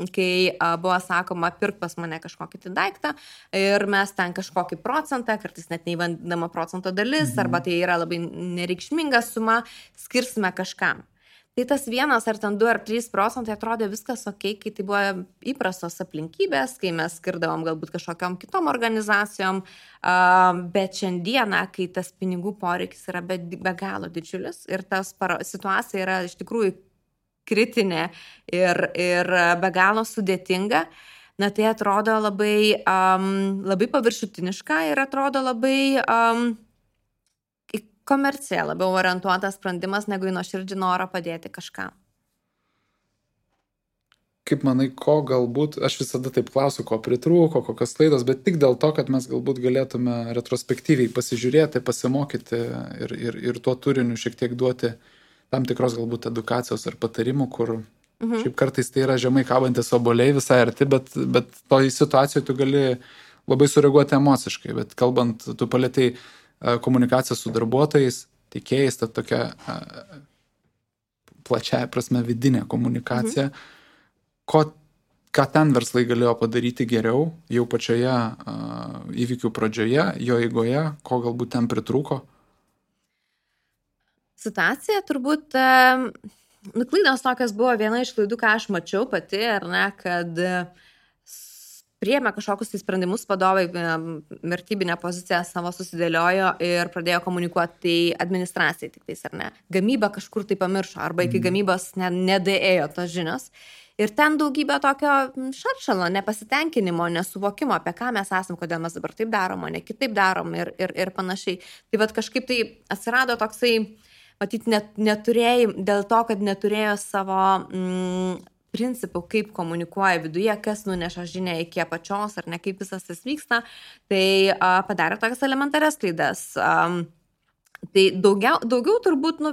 kai buvo sakoma, pirk pas mane kažkokį tai daiktą ir mes ten kažkokį procentą, kartais net neįvandama procento dalis, arba tai yra labai nereikšminga suma, skirsime kažkam. Tai tas 1 ar ten 2 ar 3% atrodė viskas ok, kai tai buvo įprastos aplinkybės, kai mes skirdavom galbūt kažkokiom kitom organizacijom, bet šiandieną, kai tas pinigų poreikis yra be galo didžiulis ir tas situacija yra iš tikrųjų kritinė ir be galo sudėtinga, na tai atrodo labai paviršutiniška ir atrodo labai komercija labiau orientuotas sprendimas, negu į nuoširdžią norą padėti kažkam. Kaip manai, ko galbūt, aš visada taip klausiu, ko pritrūko, kokios klaidos, bet tik dėl to, kad mes galbūt galėtume retrospektyviai pasižiūrėti, pasimokyti ir tuo turiniu šiek tiek duoti tam tikros galbūt edukacijos ar patarimų, kur šiaip kartais tai yra žemai kabantis obuoliai visai arti, bet toj situacijoje tu gali labai sureaguoti emociškai, bet kalbant, tu palėtei komunikacija su darbuotojais, teikėjais, ta tokia plačiai prasme vidinė komunikacija. Ką ten verslai galėjo padaryti geriau, jau pačioje įvykių pradžioje, jo eigoje, ko galbūt ten pritrūko? Situacija turbūt, klaidos tokios buvo viena iš klaidų, ką aš mačiau pati, ar ne, kad priėmė kažkokius tai sprendimus vadovai, vertybinę poziciją savo susidėliojo ir pradėjo komunikuoti tai administracijai tik tais, ar ne. Gamyba kažkur tai pamiršo, arba iki gamybos nedaėjo tos žinios. Ir ten daugybė tokio šaršalo, nepasitenkinimo, nesuvokimo, apie ką mes esam, kodėl mes dabar taip darom, o ne kitaip darom ir panašiai. Tai vat kažkaip tai atsirado toksai, matyt, dėl to, kad neturėjo savo principų, kaip komunikuoja viduje, kas nuneša žinią iki apačios ar ne, kaip visas tas vyksta, tai padarė tokias elementarias klaidas. Tai daugiau turbūt,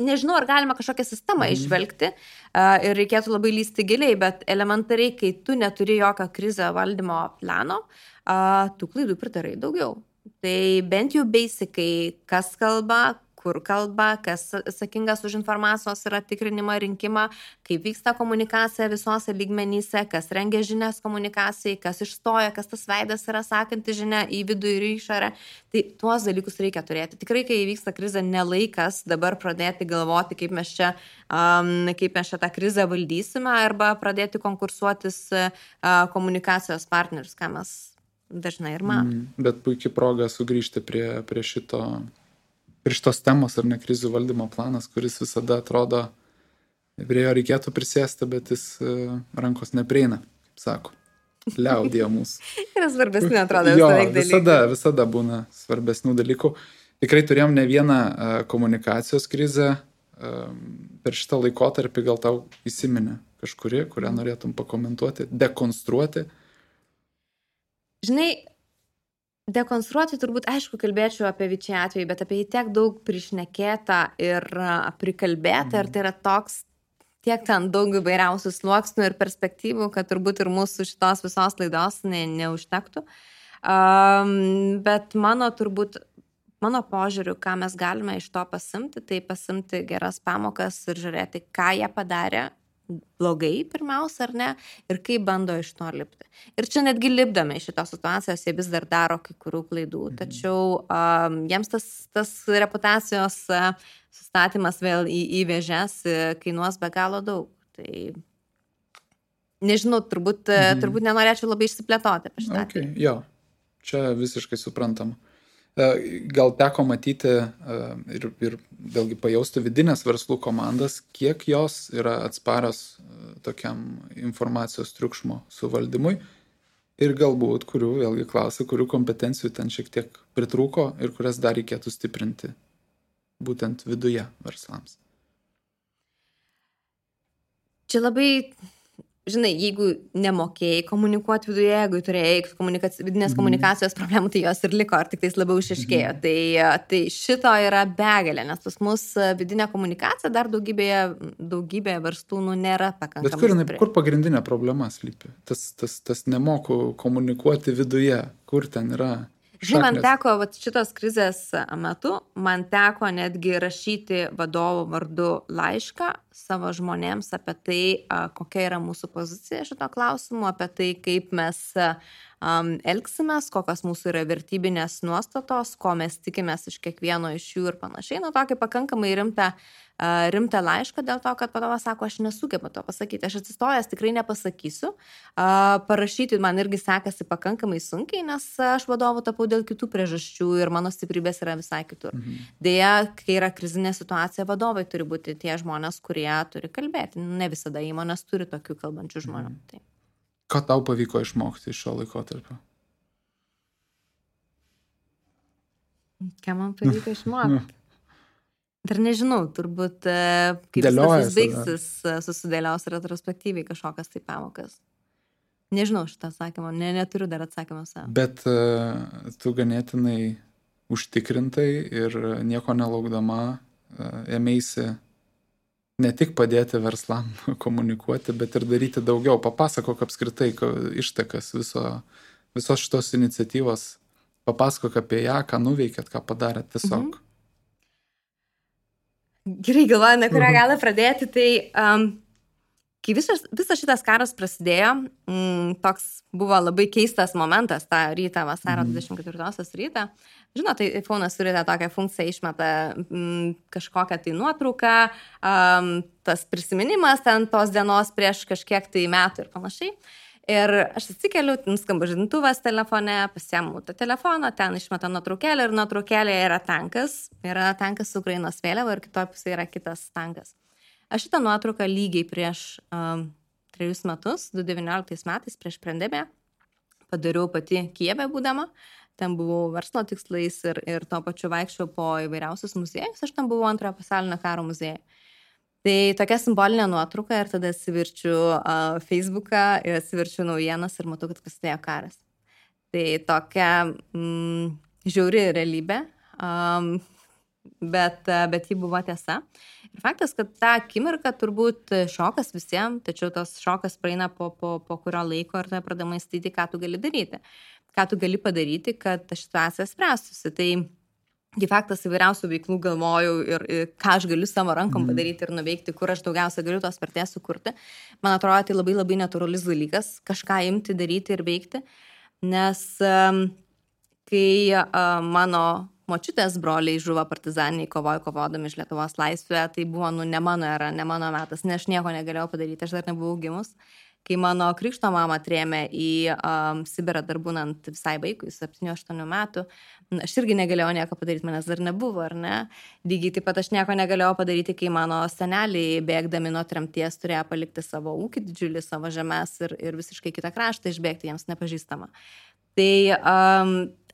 nežinau, ar galima kažkokią sistemą išvelgti ir reikėtų labai lysti giliai, bet elementariai, kai tu neturi jokio krizę valdymo plano, tų klaidų pridarai daugiau. Tai bent jau basicai, kas kalba, kur kalba, kas atsakingas už informacijos yra tikrinimą, rinkimą, kaip vyksta komunikacija visose lygmenyse, kas rengia žinias komunikacijai, kas išstoja, kas tas veidas yra sakanti žinia į vidų ir į išorę. Tai tuos dalykus reikia turėti. Tikrai, kai įvyksta krizė, nelaikas dabar pradėti galvoti, kaip mes čia tą krizę valdysime, arba pradėti konkursuotis komunikacijos partnerius, ką mes dažnai ir matome. Bet puikiai proga sugrįžti prie šitos temos ar ne, krizių valdymo planas, kuris visada atrodo, prie jo reikėtų prisėsti, bet jis rankos neprieina, kaip sako, liaudija mūsų. Yra svarbesnių, atrodo, visada būna svarbesnių dalykų. Tikrai turėjom ne vieną komunikacijos krizę per šitą laikotarpį, gal tau įsiminė kažkuri, kurią norėtum pakomentuoti, dekonstruoti? Žinai, dekonstruoti turbūt, aišku, kalbėčiau apie Vičiai atvejį, bet apie jį tiek daug prišnekėta ir prikalbėta, ir tai yra toks, tiek ten daug įvairiausių sluoksnių ir perspektyvų, kad turbūt ir mūsų šitos visos laidos neužtektų. Bet mano požiūriu, ką mes galime iš to pasimti, tai pasimti geras pamokas ir žiūrėti, ką jie padarė blogai pirmiausia, ar ne, ir kaip bando iš to lipti. Ir čia netgi lipdami iš šitos situacijos, jie vis dar daro kai kurių klaidų, tačiau jiems tas reputacijos sustatymas vėl į vėžes kainuos be galo daug. Tai nežinau, turbūt nenorėčiau labai išsiplėtoti apie šitą. Okay, jo, čia visiškai suprantama. Gal teko matyti ir vėlgi pajausti vidinės verslų komandas, kiek jos yra atsparios tokiam informacijos triukšmo suvaldymui ir galbūt, vėlgi klausiu, kurių kompetencijų ten šiek tiek pritrūko ir kurias dar reikėtų stiprinti būtent viduje verslams. Čia labai, žinai, jeigu nemokėjai komunikuoti viduje, jeigu turėjai vidinės komunikacijos problemų, tai jos ir liko, ar tik tais labiau išaiškėjo. Tai šito yra begalė, nes pas mus vidinė komunikacija dar daugybėje verslų nėra pakankamai. Bet kur pagrindinė problema slypi? Tas nemoku komunikuoti viduje, kur ten yra? Žinai, man teko šitos krizės metu, man teko netgi rašyti vadovų vardu laišką savo žmonėms apie tai, kokia yra mūsų pozicija šito klausimu, apie tai, kaip mes elgsimės, kokios mūsų yra vertybinės nuostatos, ko mes tikimės iš kiekvieno iš jų ir panašiai. Nu, tokį pakankamai rimtą laišką dėl to, kad vadovas sako, aš nesugebu to pasakyti, aš atsistojęs tikrai nepasakysiu. Parašyti man irgi sekasi pakankamai sunkiai, nes aš vadovu tapau dėl kitų priežasčių ir mano stiprybės yra visai kitur. Deja, kai yra krizinė situacija, vadovai turi būti tie žmonės, kurie turi kalbėti. Ne visada įmonės turi tokių kalbančių žmonių. Tai. Ką tau pavyko išmokti iš šio laikotarpio? Ką man pavyko išmokti? Dar nežinau, turbūt kaip viskas baigsis, susidėlios retrospektyviai kažkokias tai pamokas. Nežinau šitą atsakymą, neturiu dar atsakymą savo. Bet tu ganėtinai užtikrintai ir nieko nelaukdama ėmeisi ne tik padėti verslam komunikuoti, bet ir daryti daugiau. Papasakok apskritai ištakas visos šitos iniciatyvos. Papasakok apie ją, ką nuveikėt, ką padarėt tiesiog. Gerai, galvoju, nuo kurią galą pradėti. Tai kai visas šitas karas prasidėjo, toks buvo labai keistas momentas tą rytą, vasario 24 rytą. Žinot, tai iPhone'as turi tą tokią funkciją, išmeta kažkokią tai nuotrauką, tas prisiminimas ten tos dienos prieš kažkiek tai metų ir panašiai. Ir aš atsikeliu, nuskamba žadintuvas telefone, pasiemu tą telefoną, ten išmeta nuotraukėlę ir nuotraukėlėje yra tankas su Ukrainos vėliava ir kitoje pusėje yra kitas tankas. Aš šitą nuotrauką lygiai prieš 3 metus, 2019 metais, prieš pandemiją, padariau pati Kijeve būdama. Ten buvau verslo tikslais ir tuo pačiu vaikščiau po įvairiausius muziejus. Aš ten buvau Antrojo pasaulinio karo muziejuje. Tai tokia simbolinė nuotrauka ir tada atsiverčiu Facebooką ir atsiverčiu naujienas ir matau, kad prasidėjo karas. Tai tokia žiauri realybė, bet ji buvo tiesa. Ir faktas, kad tą akimirką turbūt šokas visiems, tačiau tas šokas praeina po kurio laiko ir tada pradama mąstyti, ką tu gali daryti. Ką tu gali padaryti, kad ta situacija spręstųsi. Tai faktas įvairiausių veiklų galvojau ir ką aš galiu savo rankom padaryti ir nuveikti, kur aš daugiausia galiu tos vertės sukurti. Man atrodo, tai labai labai natūralus dalykas, kažką imti, daryti ir veikti. Nes kai mano močiutės broliai žuvo partizaniniai kovodami iš Lietuvos laisvę, tai buvo ne mano era, ne mano metas, nes aš nieko negalėjau padaryti, aš dar nebuvau gimus. Kai mano krikšto mama trėmė į Sibirą dar būnant visai vaikui, 7-8 metų, aš irgi negalėjau nieko padaryti, manęs dar nebuvo, ar ne? Lygiai taip pat aš nieko negalėjau padaryti, kai mano seneliai bėgdami nuo tremties turėjo palikti savo ūkį didžiulį, savo žemės ir visiškai kitą kraštą išbėgti jiems nepažįstamą. Tai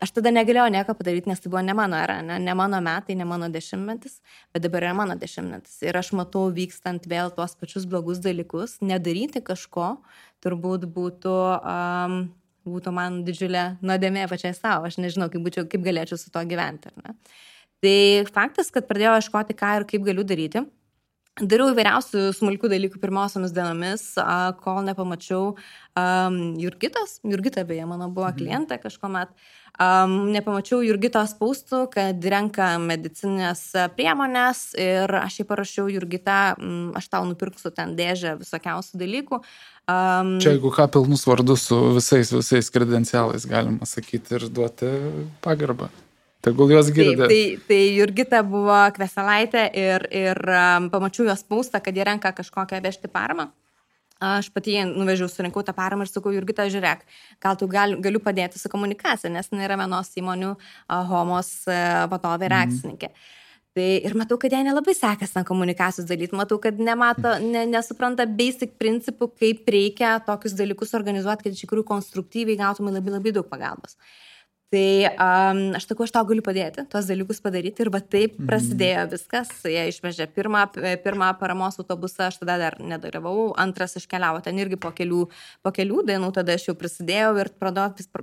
aš tada negalėjau nieko padaryti, nes tai buvo ne mano era, ne mano metai, ne mano dešimtmetis, bet dabar yra mano dešimtmetis. Ir aš matau vykstant vėl tuos pačius blogus dalykus, nedaryti kažko turbūt būtų man didžiulė nuodėmė pačiai savo. Aš nežinau, kaip galėčiau su to gyventi. Ar ne? Tai faktas, kad pradėjau ieškoti, ką ir kaip galiu daryti. Dariau įvairiausių smulkių dalykų pirmosiomis dienomis, kol nepamačiau Jurgita beje, mano buvo klientė kažkuomet, nepamačiau Jurgitos postų, kad renka medicinės priemonės ir aš jai parašiau, Jurgita, aš tau nupirksiu ten dėžę visokiausių dalykų. Čia jeigu ką pilnus vardus su visais kredencialais galima sakyti ir duoti pagarbą. Tegul jos girdė. Tai Jurgita buvo Kveselaitė ir pamačiau jos postą, kad jie renka kažkokią vežti paramą. Aš pati nuvežiau, surinkau tą paramą ir sakau, Jurgita, žiūrėk, gal tu galiu padėti su komunikacija, nes nėra vienos įmonių Homos vadovė ir akcininkė. Tai ir matau, kad jai nelabai sekasi komunikacijos dalyti, matau, kad nesupranta basic principų, kaip reikia tokius dalykus organizuoti, kad iš tikrųjų konstruktyviai gautumai labai labai daug pagalbos. Tai aš sakau, aš tau galiu padėti, tuos dalykus padaryti ir va taip prasidėjo viskas. Jie išvežė pirmą paramos autobusą, aš tada dar nedalyvavau, antras iškeliavo ten irgi po kelių dienų, tada aš jau prisidėjau ir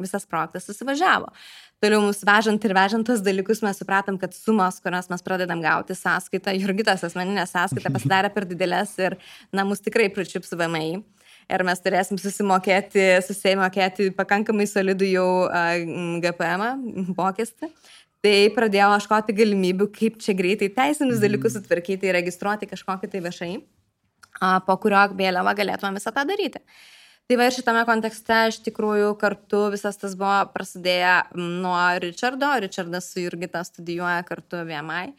visas projektas susivažiavo. Toliau mus vežant ir vežant tos dalykus mes supratom, kad sumos, kurias mes pradedam gauti sąskaitą, Jurgitos asmeninė sąskaita pasidarė per didelės ir mus tikrai pričiups VMI. Ir mes turėsim susimokėti pakankamai solidų jau GPM mokestį. Tai pradėjau ieškoti galimybių, kaip čia greitai teisinius dalykus sutvarkyti, registruoti kažkokį tai viešai, po kurio vėliava galėtume visą tą daryti. Tai va ir šitame kontekste iš tikrųjų kartu visas tas buvo prasidėję nuo Richardo. Richardas su Jurgita studijuoja kartu VMI.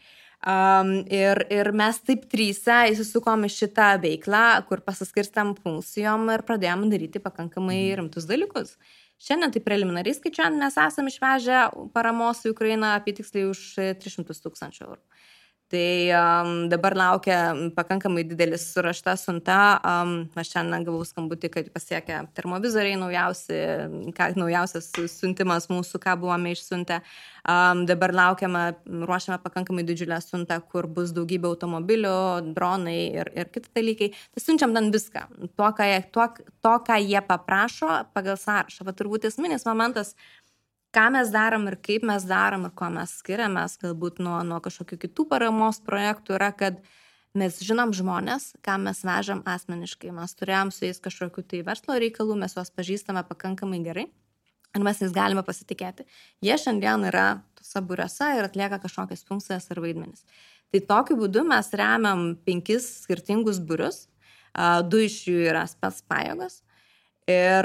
Ir mes taip tryse įsisukom į šitą veiklą, kur pasiskirstam funkcijom ir pradėjom daryti pakankamai rimtus dalykus. Šiandien tai preliminariai skaičiuojant, mes esam išvežę paramos į Ukrainą apie tiksliai už 300 000 eurų. Tai dabar laukia pakankamai didelis surašta siunta. Aš šiandien gavau skambutį, kad pasiekia termovizoriai naujausias siuntimas mūsų, ką buvome išsiuntę. Dabar ruošiame pakankamai didžiulę siuntą, kur bus daugybė automobilių, dronai ir kiti dalykai. Tai siunčiam ten viską. To, ką jie paprašo pagal sąrašą. Va turbūt esminis momentas, ką mes darom ir kaip mes darom ir ko mes skiriamės galbūt nuo kažkokių kitų paramos projektų yra, kad mes žinom žmonės, ką mes vežam asmeniškai. Mes turėjom su jais kažkokių tai verslo reikalų, mes juos pažįstame pakankamai gerai ir mes jais galime pasitikėti. Jie šiandien yra tose būriuose ir atlieka kažkokias funkcijas ar vaidmenis. Tai tokiu būdu mes remiam 5 skirtingus būrius, 2 iš jų yra spec pajėgos. Ir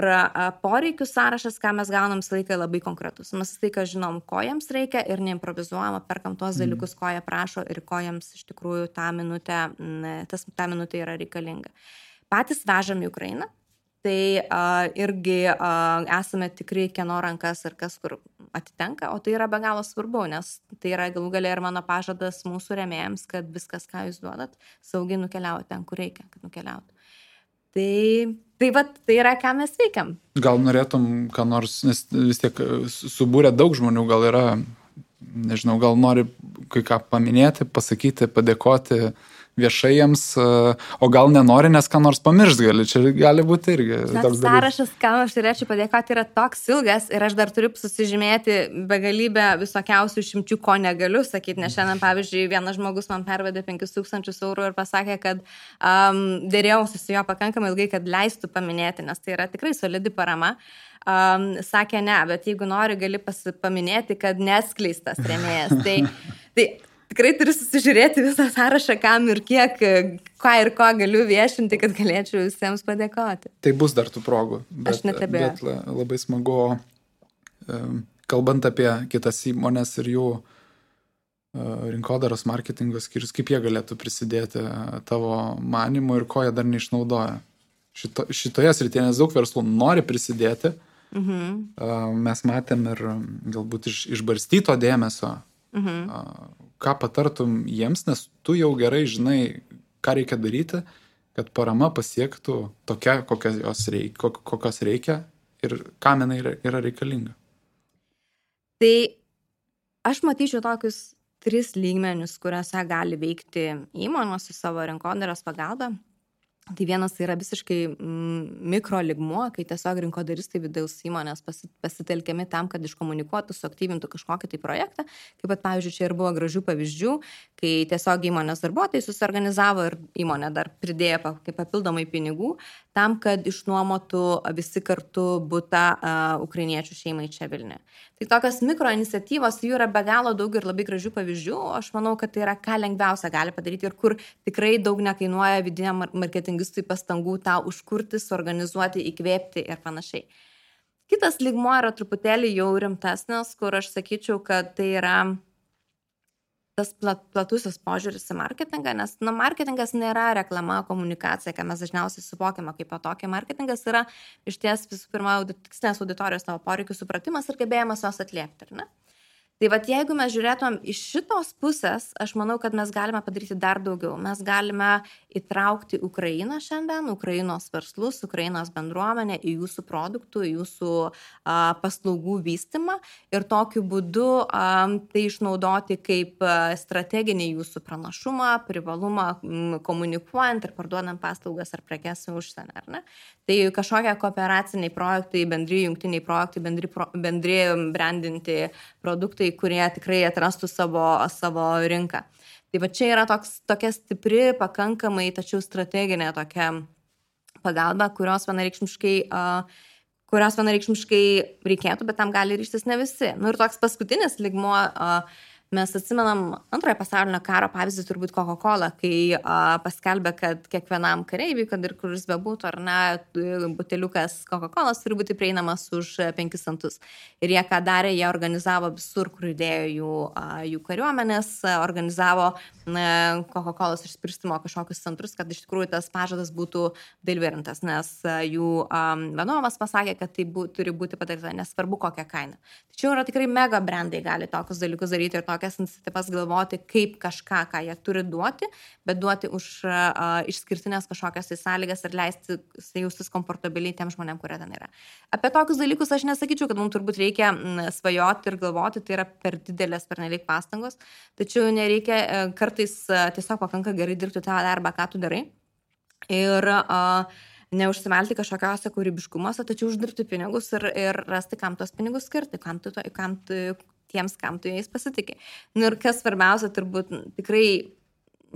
poreikių sąrašas, ką mes gaunam, visą laiką labai konkretus. Mes visą laiką žinom, ko jiems reikia ir neimprovizuojama, perkam tuos dalykus, ko jie prašo ir ko jiems iš tikrųjų tą minutę yra reikalinga. Patys vežam į Ukrainą, tai irgi esame tikrai kieno rankas ir kas kur atitenka, o tai yra be galo svarbu, nes tai yra galų gale ir mano pažadas mūsų rėmėjams, kad viskas, ką jūs duodat, saugiai nukeliauja ten, kur reikia, kad nukeliautų. Tai yra, ką mes veikiam. Gal norėtum, ką nors, nes vis tiek subūrė daug žmonių, gal yra, nežinau, gal nori kai ką paminėti, pasakyti, padėkoti viešai jiems, o gal nenori, nes ką nors pamiršt gali, čia gali būti irgi. Sąrašas, ką aš turėčiau padėkoti, yra toks ilgas ir aš dar turiu susižymėti begalybę visokiausių išimčių, ko negaliu sakyti, nes šiandien, pavyzdžiui, vienas žmogus man pervedė 5 000 eurų ir pasakė, kad dėrėjausi su jo pakankamai ilgai, kad leistų paminėti, nes tai yra tikrai solidi parama. Sakė ne, bet jeigu nori, gali paminėti, kad neskleistas rėmėjas. Tai tikrai turiu susižiūrėti visą sąrašą, kam ir kiek, ką ir ko galiu viešinti, kad galėčiau visiems padėkoti. Tai bus dar tų progų. Aš netebėjau. Bet labai smagu, kalbant apie kitas įmonės ir jų rinkodaros marketingo skyrius, kaip jie galėtų prisidėti tavo manymu ir ko jie dar neišnaudoja. Šitoje srityje, nes daug verslų nori prisidėti. Mes matėm ir galbūt išbarstyto dėmesio. Ką patartum jiems, nes tu jau gerai žinai, ką reikia daryti, kad parama pasiektų tokia, kokios reikia ir kam jinai yra reikalinga. Tai aš matyčiau tokius 3 lygmenius, kuriuose gali veikti įmonės su savo rinkodaros pagalba. Tai vienas yra visiškai mikro lygmuo, kai tiesiog rinkodaristai vidaus įmonės pasitelkiami tam, kad iškomunikuotų, suaktyvintų kažkokį tai projektą. Kaip pat, pavyzdžiui, čia ir buvo gražių pavyzdžių, kai tiesiog įmonės darbuotojai susiorganizavo ir įmonė dar pridėjo kaip papildomai pinigų tam, kad išnuomotų visi kartu butą ukrainiečių šeimai čia Vilniuje. Tai tokios mikro iniciatyvos, jų yra be galo daug ir labai gražių pavyzdžių. Aš manau, kad tai yra ką lengviausia gali padaryti ir kur tikrai daug nekainuoja vidiniam marketingistui pastangų tą užkurti, suorganizuoti, įkvėpti ir panašiai. Kitas lygmuo yra truputėlį jau rimtesnis, kur aš sakyčiau, kad tai yra tas platusis požiūris į marketingą, nes marketingas nėra reklama, komunikacija, ką mes dažniausiai suvokiame kaip tokį. Marketingas yra iš ties visų pirma tikslinės auditorijos tavo poreikių supratimas ir gebėjimas jos atliepti, ar ne? Tai vat jeigu mes žiūrėtumėm iš šitos pusės, aš manau, kad mes galime padaryti dar daugiau. Mes galime įtraukti Ukrainą šiandien, Ukrainos verslus, Ukrainos bendruomenę į jūsų produktų, į jūsų paslaugų vystymą ir tokiu būdu tai išnaudoti kaip strateginį jūsų pranašumą, privalumą komunikuojant ir parduodant paslaugas ar prekes į užsienį, ar ne? Tai kažkokie kooperaciniai projektai, bendri jungtiniai projektai, bendri brandinti produktai, kurie tikrai atrastų savo rinką. Tai va čia yra tokia stipri, pakankamai, tačiau strateginė tokia pagalba, kurios vienareikšmiškai reikėtų, bet tam gali ryžtis ne visi. Nu ir toks paskutinis lygmuo, mes atsimenam antrojo pasaulinio karo pavyzdį turbūt Coca-Cola, kai paskelbė, kad kiekvienam kareiviui, kad ir kuris bebūtų, ar ne, buteliukas Coca-Colas turi būti prieinamas už 5 centus. Ir jie ką darė, jie organizavo visur, kur judėjo jų kariuomenės, organizavo Coca-Colos išspirstymo kažkokius centrus, kad iš tikrųjų tas pažadas būtų dalyverintas, nes jų vadovas pasakė, kad tai turi būti padaryta, nesvarbu kokią kainą. Tačiau yra tikrai mega brandai gali tokius dalykus daryti ir tokias iniciatyvas galvoti, kaip kažką, ką jie turi duoti, bet duoti už išskirtinės kažkokias sąlygas ir leisti jaustis komfortabiliai tiem žmonėm, kurie ten yra. Apie tokius dalykus aš nesakyčiau, kad mums turbūt reikia svajoti ir galvoti, tai yra per didelės, pernelyg pastangos, tačiau nereikia, kartais tiesiog pakanka gerai dirbti tą darbą, ką tu darai ir neužsimelti kažkokiuose kūrybiškumuose, tačiau uždirbti pinigus ir rasti, kam tos pinigus skirti, kam tu jais pasitikė. Ir kas svarbiausia, turbūt tikrai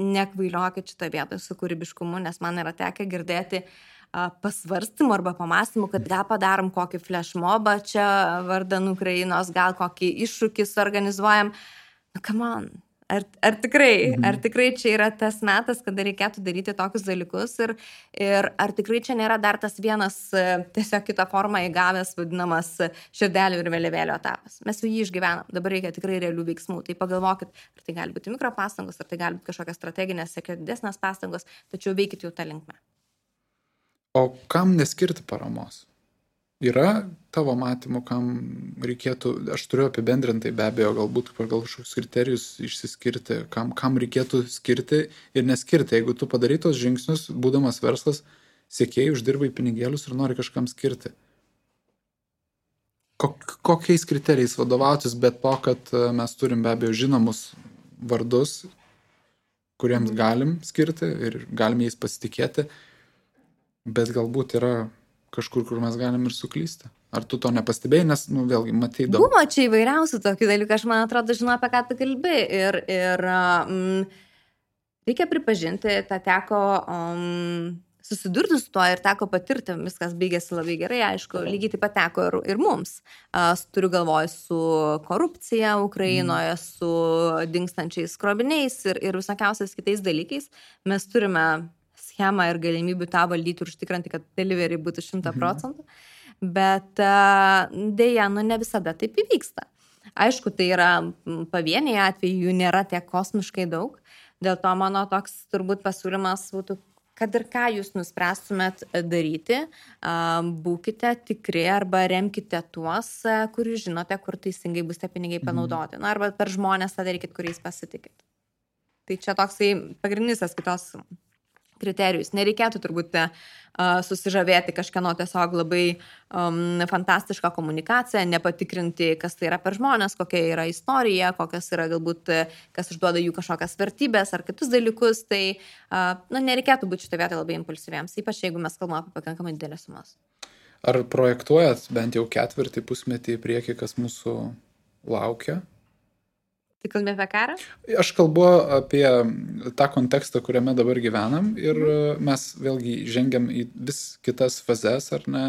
nekvailiokit šitą vietą su kūrybiškumu, nes man yra tekę girdėti pasvarstymų arba pamastymų, kad gal padarom kokį flashmobą čia vardan Ukrainos, gal kokį iššūkį suorganizuojam. Come on. Ar tikrai čia yra tas metas, kada reikėtų daryti tokius dalykus ir ar tikrai čia nėra dar tas vienas tiesiog kitą formą įgavęs vadinamas širdelių ir vėliavėlio etapas. Mes jau jį išgyvenam, dabar reikia tikrai realių veiksmų. Tai pagalvokit, ar tai gali būti mikropastangos, ar tai gali būti kažkokios strateginės, siekia didesnės pastangos, tačiau veikit jau tą linkmę. O kam neskirti paramos? Yra tavo matymų, kam reikėtų, aš turiu apibendrintai be abejo, galbūt pagal kažkokius kriterijus išsiskirti, kam reikėtų skirti ir neskirti. Jeigu tu padarai tos žingsnius, būdamas verslas, siekėjai uždirbai pinigėlius ir nori kažkam skirti. Kokiais kriterijais vadovautis, bet to, kad mes turim be abejo žinomus vardus, kuriems galim skirti ir galim jais pasitikėti, bet galbūt yra kažkur, kur mes galim ir suklysti. Ar tu to nepastebėjai, nes, vėlgi, matai daug. Buvo čia įvairiausių tokių dalykų, aš man atrodo, žinau, apie ką tu kalbi. Ir reikia pripažinti, tą teko susidurti su tuo ir teko patirti, viskas baigėsi labai gerai, aišku, lygiai taip pat teko ir mums. Turiu galvoj su korupcija Ukrainoje, su dingstančiais kroviniais ir visokiausiais kitais dalykais. Mes turime schemą ir galimybių tą valdyti ir užtikrinti, kad delivery būtų 100%, bet dėja, ne visada taip įvyksta. Aišku, tai yra pavieniai atvejai, jų nėra tiek kosmiškai daug, dėl to mano toks turbūt pasiūlymas būtų, kad ir ką jūs nuspręstumėt daryti, būkite tikri arba remkite tuos, kur jūs žinote, kur teisingai bus tie pinigai panaudoti. Arba per žmonės tą darykit, kuriais pasitikit. Tai čia toksai pagrindinis kitos kriterijus. Nereikėtų turbūt susižavėti kažkieno tiesiog labai fantastišką komunikaciją, nepatikrinti, kas tai yra per žmonės, kokia yra istorija, kokias yra galbūt, kas išduoda jų kažkokias vertybės ar kitus dalykus. Tai nereikėtų būti šitą vietą labai impulsyviems, ypač jeigu mes kalbame apie pakankamai didelės sumas. Ar projektuojat bent jau ketvirtį, pusmetį į priekį, kas mūsų laukia? Tai kalbė apie karą? Aš kalbu apie tą kontekstą, kuriame dabar gyvenam ir mes vėlgi žengiam į vis kitas fazes, ar ne,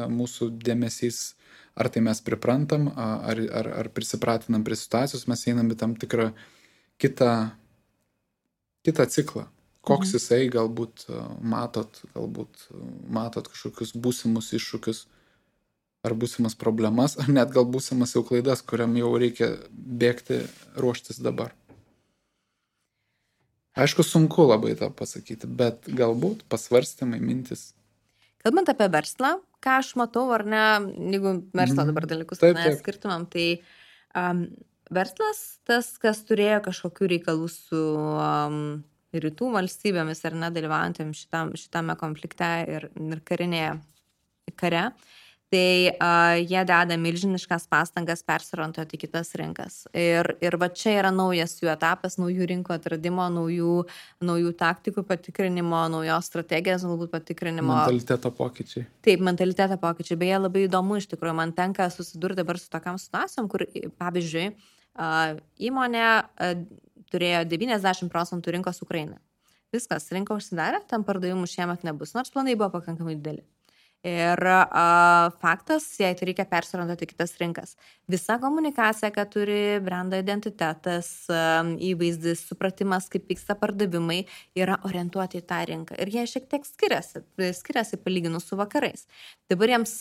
mūsų dėmesys, ar tai mes priprantam, ar prisipratinam prie situacijos, mes einam į tam tikrą kitą ciklą. Koks jisai galbūt matot kažkokius būsimus iššūkius, ar būsimas problemas, ar net gal būsimas jau klaidas, kuriam jau reikia bėgti, ruoštis dabar. Aišku, sunku labai tą pasakyti, bet galbūt pasvarstymai, mintis. Kalbant apie verslą, ką aš matau, ar ne, jeigu verslo dabar dalykus skirtumam, tai verslas, tas, kas turėjo kažkokių reikalų su rytų valstybėmis ar nedalyvaujantėm šitame konflikte ir karinėje kare, tai jie deda milžiniškas pastangas persiorientuoti į kitas rinkas. Ir va čia yra naujas jų etapas, naujų rinkų atradimo, naujų taktikų patikrinimo, naujos strategijos, galbūt patikrinimo. Mentaliteto pokyčiai. Taip, mentaliteto pokyčiai. Beje, labai įdomu iš tikrųjų, man tenka susidurti dabar su tokiam situacijom, kur, pavyzdžiui, įmonė turėjo 90% rinkos Ukrainai. Viskas, rinka užsidarė, tam pardavimų šiemet nebus, nors planai buvo pakankamai dideli. Ir faktas, jei tai reikia persiorientuoti kitas rinkas. Visa komunikacija, kad turi brendo identitetas, įvaizdis, supratimas, kaip vyksta pardavimai, yra orientuoti į tą rinką. Ir jie šiek tiek skiriasi palyginus su vakarais. Dabar jiems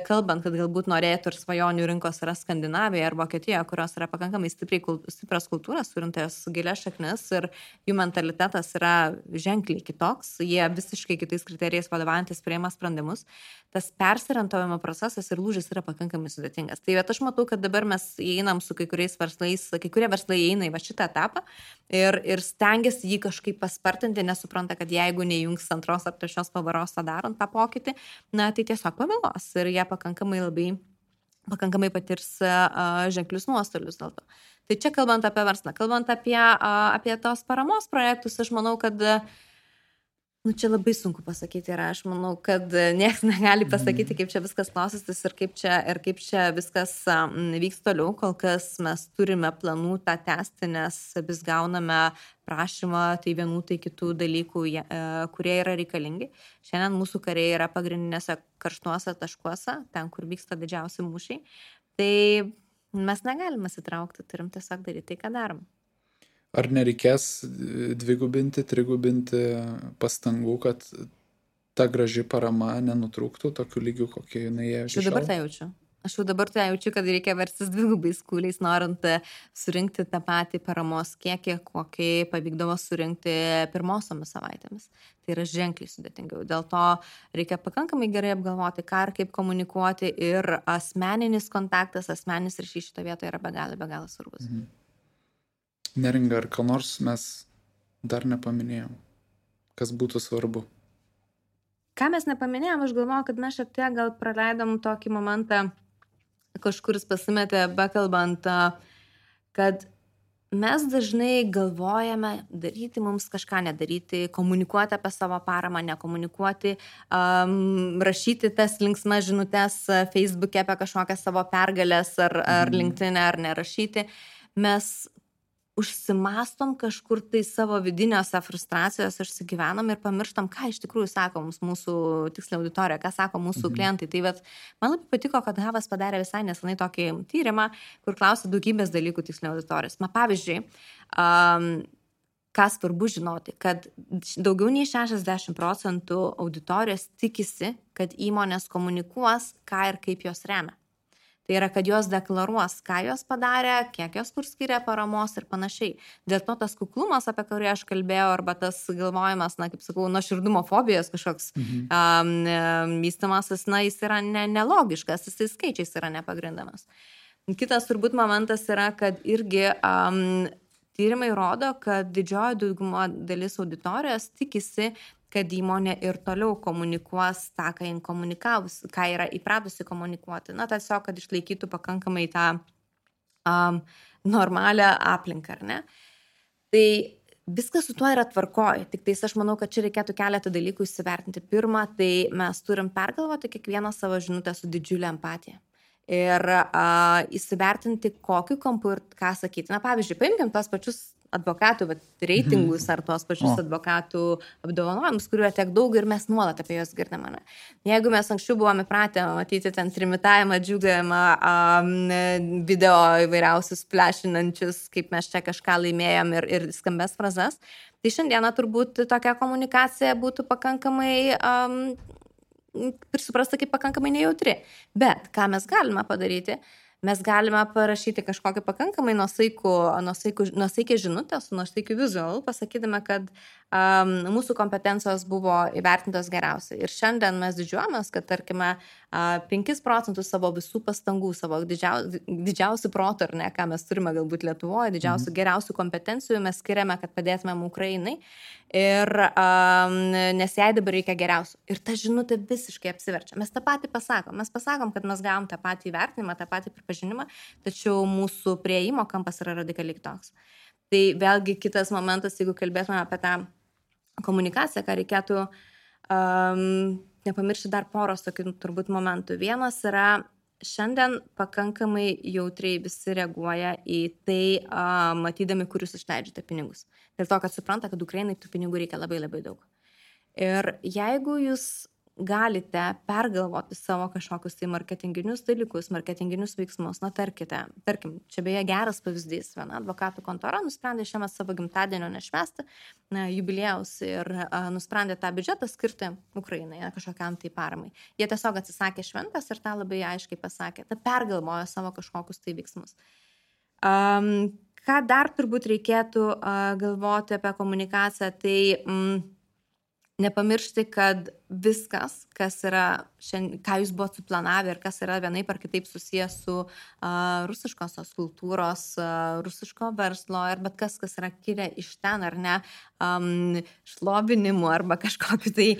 kalbant, kad galbūt norėtų ir svajonių rinkos yra Skandinavija ar Vokietija, kurios yra pakankamai stiprios kultūros, turintas gilias šaknis ir jų mentalitetas yra ženkliai kitoks, jie visiškai kitais kriterijais vadovaujantis priima sprendimus. Tas persiorientavimo procesas ir lūžis yra pakankamai sudėtingas. Tai aš matau, kad dabar mes įeinam su kai kuriais verslais, kai kurie verslai įeina į šitą etapą ir stengiasi jį kažkaip paspartinti, nesupranta, kad jeigu neįjungs antros ar trečios pavaros tą darant tą pokytį, na tai tiesiog pavėlos ir jie pakankamai patirs ženklius nuostolius dėl to. Tai čia kalbant apie verslą, kalbant apie tos paramos projektus, aš manau, kad čia labai sunku pasakyti ir aš manau, kad niekas negali pasakyti, kaip čia viskas klostysis ir kaip čia viskas vyks toliau. Kol kas mes turime planų tą tęsti, nes vis gauname prašymą tai vienų, tai kitų dalykų, kurie yra reikalingi. Šiandien mūsų kariai yra pagrindinėse karštuose taškuose, ten, kur vyksta didžiausi mūšiai. Tai mes negalime sitraukti, turim tiesiog daryti tai, ką darom. Ar nereikės dvigubinti, trigubinti pastangų, kad ta graži parama nenutrūktų tokiu lygiu, kokie jinai jie iki šiol? Aš jau dabar tai jaučiu, kad reikia verstis dvigubais kūliais, norint surinkti tą patį paramos kiekį, kokį pavykdavo surinkti pirmosiomis savaitėmis. Tai yra ženkliai sudėtingiau. Dėl to reikia pakankamai gerai apgalvoti, ką ir kaip komunikuoti ir asmeninis kontaktas, asmeninis ryšys šito vietoje yra be galo svarbus. Neringa, ar ką nors mes dar nepaminėjom, kas būtų svarbu? Ką mes nepaminėjom, aš galvoju, kad mes šiek tiek gal praleidom tokį momentą, kažkuris pasimetė bekalbant, kad mes dažnai galvojame daryti mums kažką nedaryti, komunikuoti apie savo paramą, nekomunikuoti, rašyti tas linksmas žinutes Facebook'e apie kažkokias savo pergalės ar LinkedIn'e ar nerašyti. Mes užsimastom kažkur tai savo vidiniuose frustracijos, išsigyvenam ir pamirštam, ką iš tikrųjų sako mūsų tiksliai auditorija, ką sako mūsų klientai. Tai man labai patiko, kad Havas padarė visai nesenai tokį tyrimą, kur klausė daugybės dalykų tiksliai auditorijos. Pavyzdžiui, ką svarbu žinoti, kad daugiau nei 60% auditorijos tikisi, kad įmonės komunikuos, ką ir kaip jos remia. Tai yra, kad jos deklaruos, ką jos padarė, kiek jos kur skiria paramos ir panašiai. Dėl to tas kuklumas, apie kurį aš kalbėjau, arba tas galvojimas, kaip sakau, nuoširdumo fobijos kažkoks vystymasis, jis yra nelogiškas, jis skaičiais yra nepagrindamas. Kitas turbūt momentas yra, kad irgi tyrimai rodo, kad didžioji dauguma dalis auditorijos tikisi, kad įmonė ir toliau komunikuos tą, ką yra įpratusi komunikuoti. Tiesiog, kad išlaikytų pakankamai tą normalią aplinką, ar ne? Tai viskas su tuo yra tvarkoj, tik tais aš manau, kad čia reikėtų keletą dalykų įsivertinti. Pirma, tai mes turim pergalvoti kiekvieną savo žinutę su didžiulė empatija. Ir įsivertinti, kokiu kampu ir ką sakyti. Pavyzdžiui, paimkim tos pačius advokatų reitingus ar tuos pačius advokatų apdovanojimus, kuriuo tiek daug ir mes nuolat apie juos girdime. Jeigu mes anksčiau buvome pratę matyti ten trimitavimą, džiugavimą, video įvairiausius flešinančius, kaip mes čia kažką laimėjom ir skambės frazes, tai šiandieną turbūt tokia komunikacija būtų pakankamai suprasta kaip pakankamai nejautri. Bet ką mes galime padaryti? Mes galime parašyti kažkokį pakankamai nuosaikę žinutę su nuosaikiu vizualu, pasakydami, kad mūsų kompetencijos buvo įvertintos geriausiai. Ir šiandien mes didžiuojamės, kad, tarkime, 5% savo visų pastangų, savo didžiausių protų, ar ne, ką mes turime galbūt Lietuvoje, didžiausių geriausių kompetencijų mes skiriame, kad padėtumėm Ukrainai. Ir nes jai dabar reikia geriausių. Ir ta žinutė visiškai apsiverčia. Mes tą patį pasakom. Mes pasakom, kad mes gavom tą patį įvertinimą, tą patį pripažinimą, tačiau mūsų prieimo kampas yra radikaliai toks. Tai vėlgi kitas momentas, jeigu kalbėtume apie tą komunikaciją, ką reikėtų nepamiršti dar poros tokių turbūt momentų. Vienas yra, šiandien pakankamai jautriai visi reaguoja į tai, matydami, kur jūs išleidžiate pinigus. Dėl to, kad supranta, kad Ukrainai tų pinigų reikia labai labai daug. Ir jeigu jūs galite pergalvoti savo kažkokius tai marketinginius dalykus, marketinginius veiksmus, tarkim, čia beje geras pavyzdys, viena advokatų kontora nusprendė šiemet savo gimtadienio nešvęsti jubiliejaus ir nusprendė tą biudžetą skirti Ukrainai, kažkokiam tai paramai. Jie tiesiog atsisakė šventės ir tą labai aiškiai pasakė, tą pergalvojo savo kažkokius tai veiksmus. Ką dar turbūt reikėtų galvoti apie komunikaciją, tai nepamiršti, kad viskas, kas yra, ką jūs buvote suplanavę ir kas yra vienaip ar kitaip susijęs su rusiškosios kultūros, rusiško verslo ir bet kas yra kilę iš ten ar ne, šlovinimu arba kažkokiu tai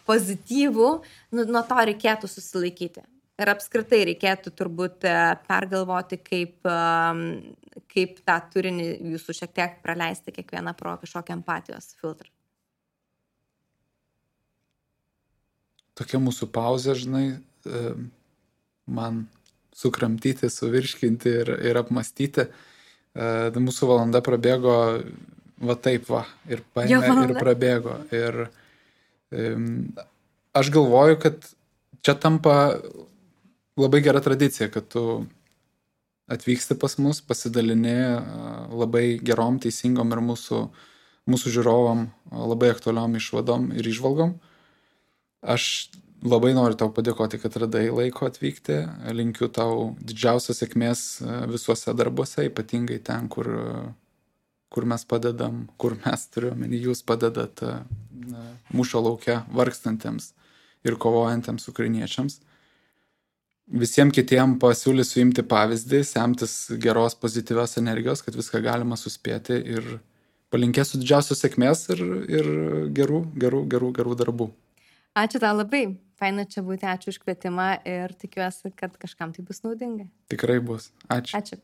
pozityvų, nuo to reikėtų susilaikyti. Ir apskritai reikėtų turbūt pergalvoti, kaip tą turinį jūsų šiek tiek praleisti kiekvieną pro kažkokią empatijos filtrą. Tokia mūsų pauzė, žinai, man sukramtyti, suvirškinti ir apmastyti. Mūsų valanda prabėgo va taip va, ir paėmė ir prabėgo. Ir aš galvoju, kad čia tampa labai gera tradicija, kad tu atvyksti pas mus, pasidalini labai gerom, teisingom ir mūsų žiūrovom labai aktualiom išvadom ir išvalgom. Aš labai noriu tau padėkoti, kad radai laiko atvykti. Linkiu tau didžiausios sėkmės visuose darbuose, ypatingai ten, kur mes padedam, kur mes turiuomenį, jūs padedat mūšio lauke vargstantiems ir kovojantiems ukrainiečiams. Visiems kitiems pasiūlysiu imti pavyzdį, semtis geros pozityvios energijos, kad viską galima suspėti ir palinkėsiu didžiausios sėkmės ir gerų darbų. Ačiū tau labai. Faina čia būti, ačiū už kvietimą ir tikiuosi, kad kažkam tai bus naudinga. Tikrai bus. Ačiū. Ačiū.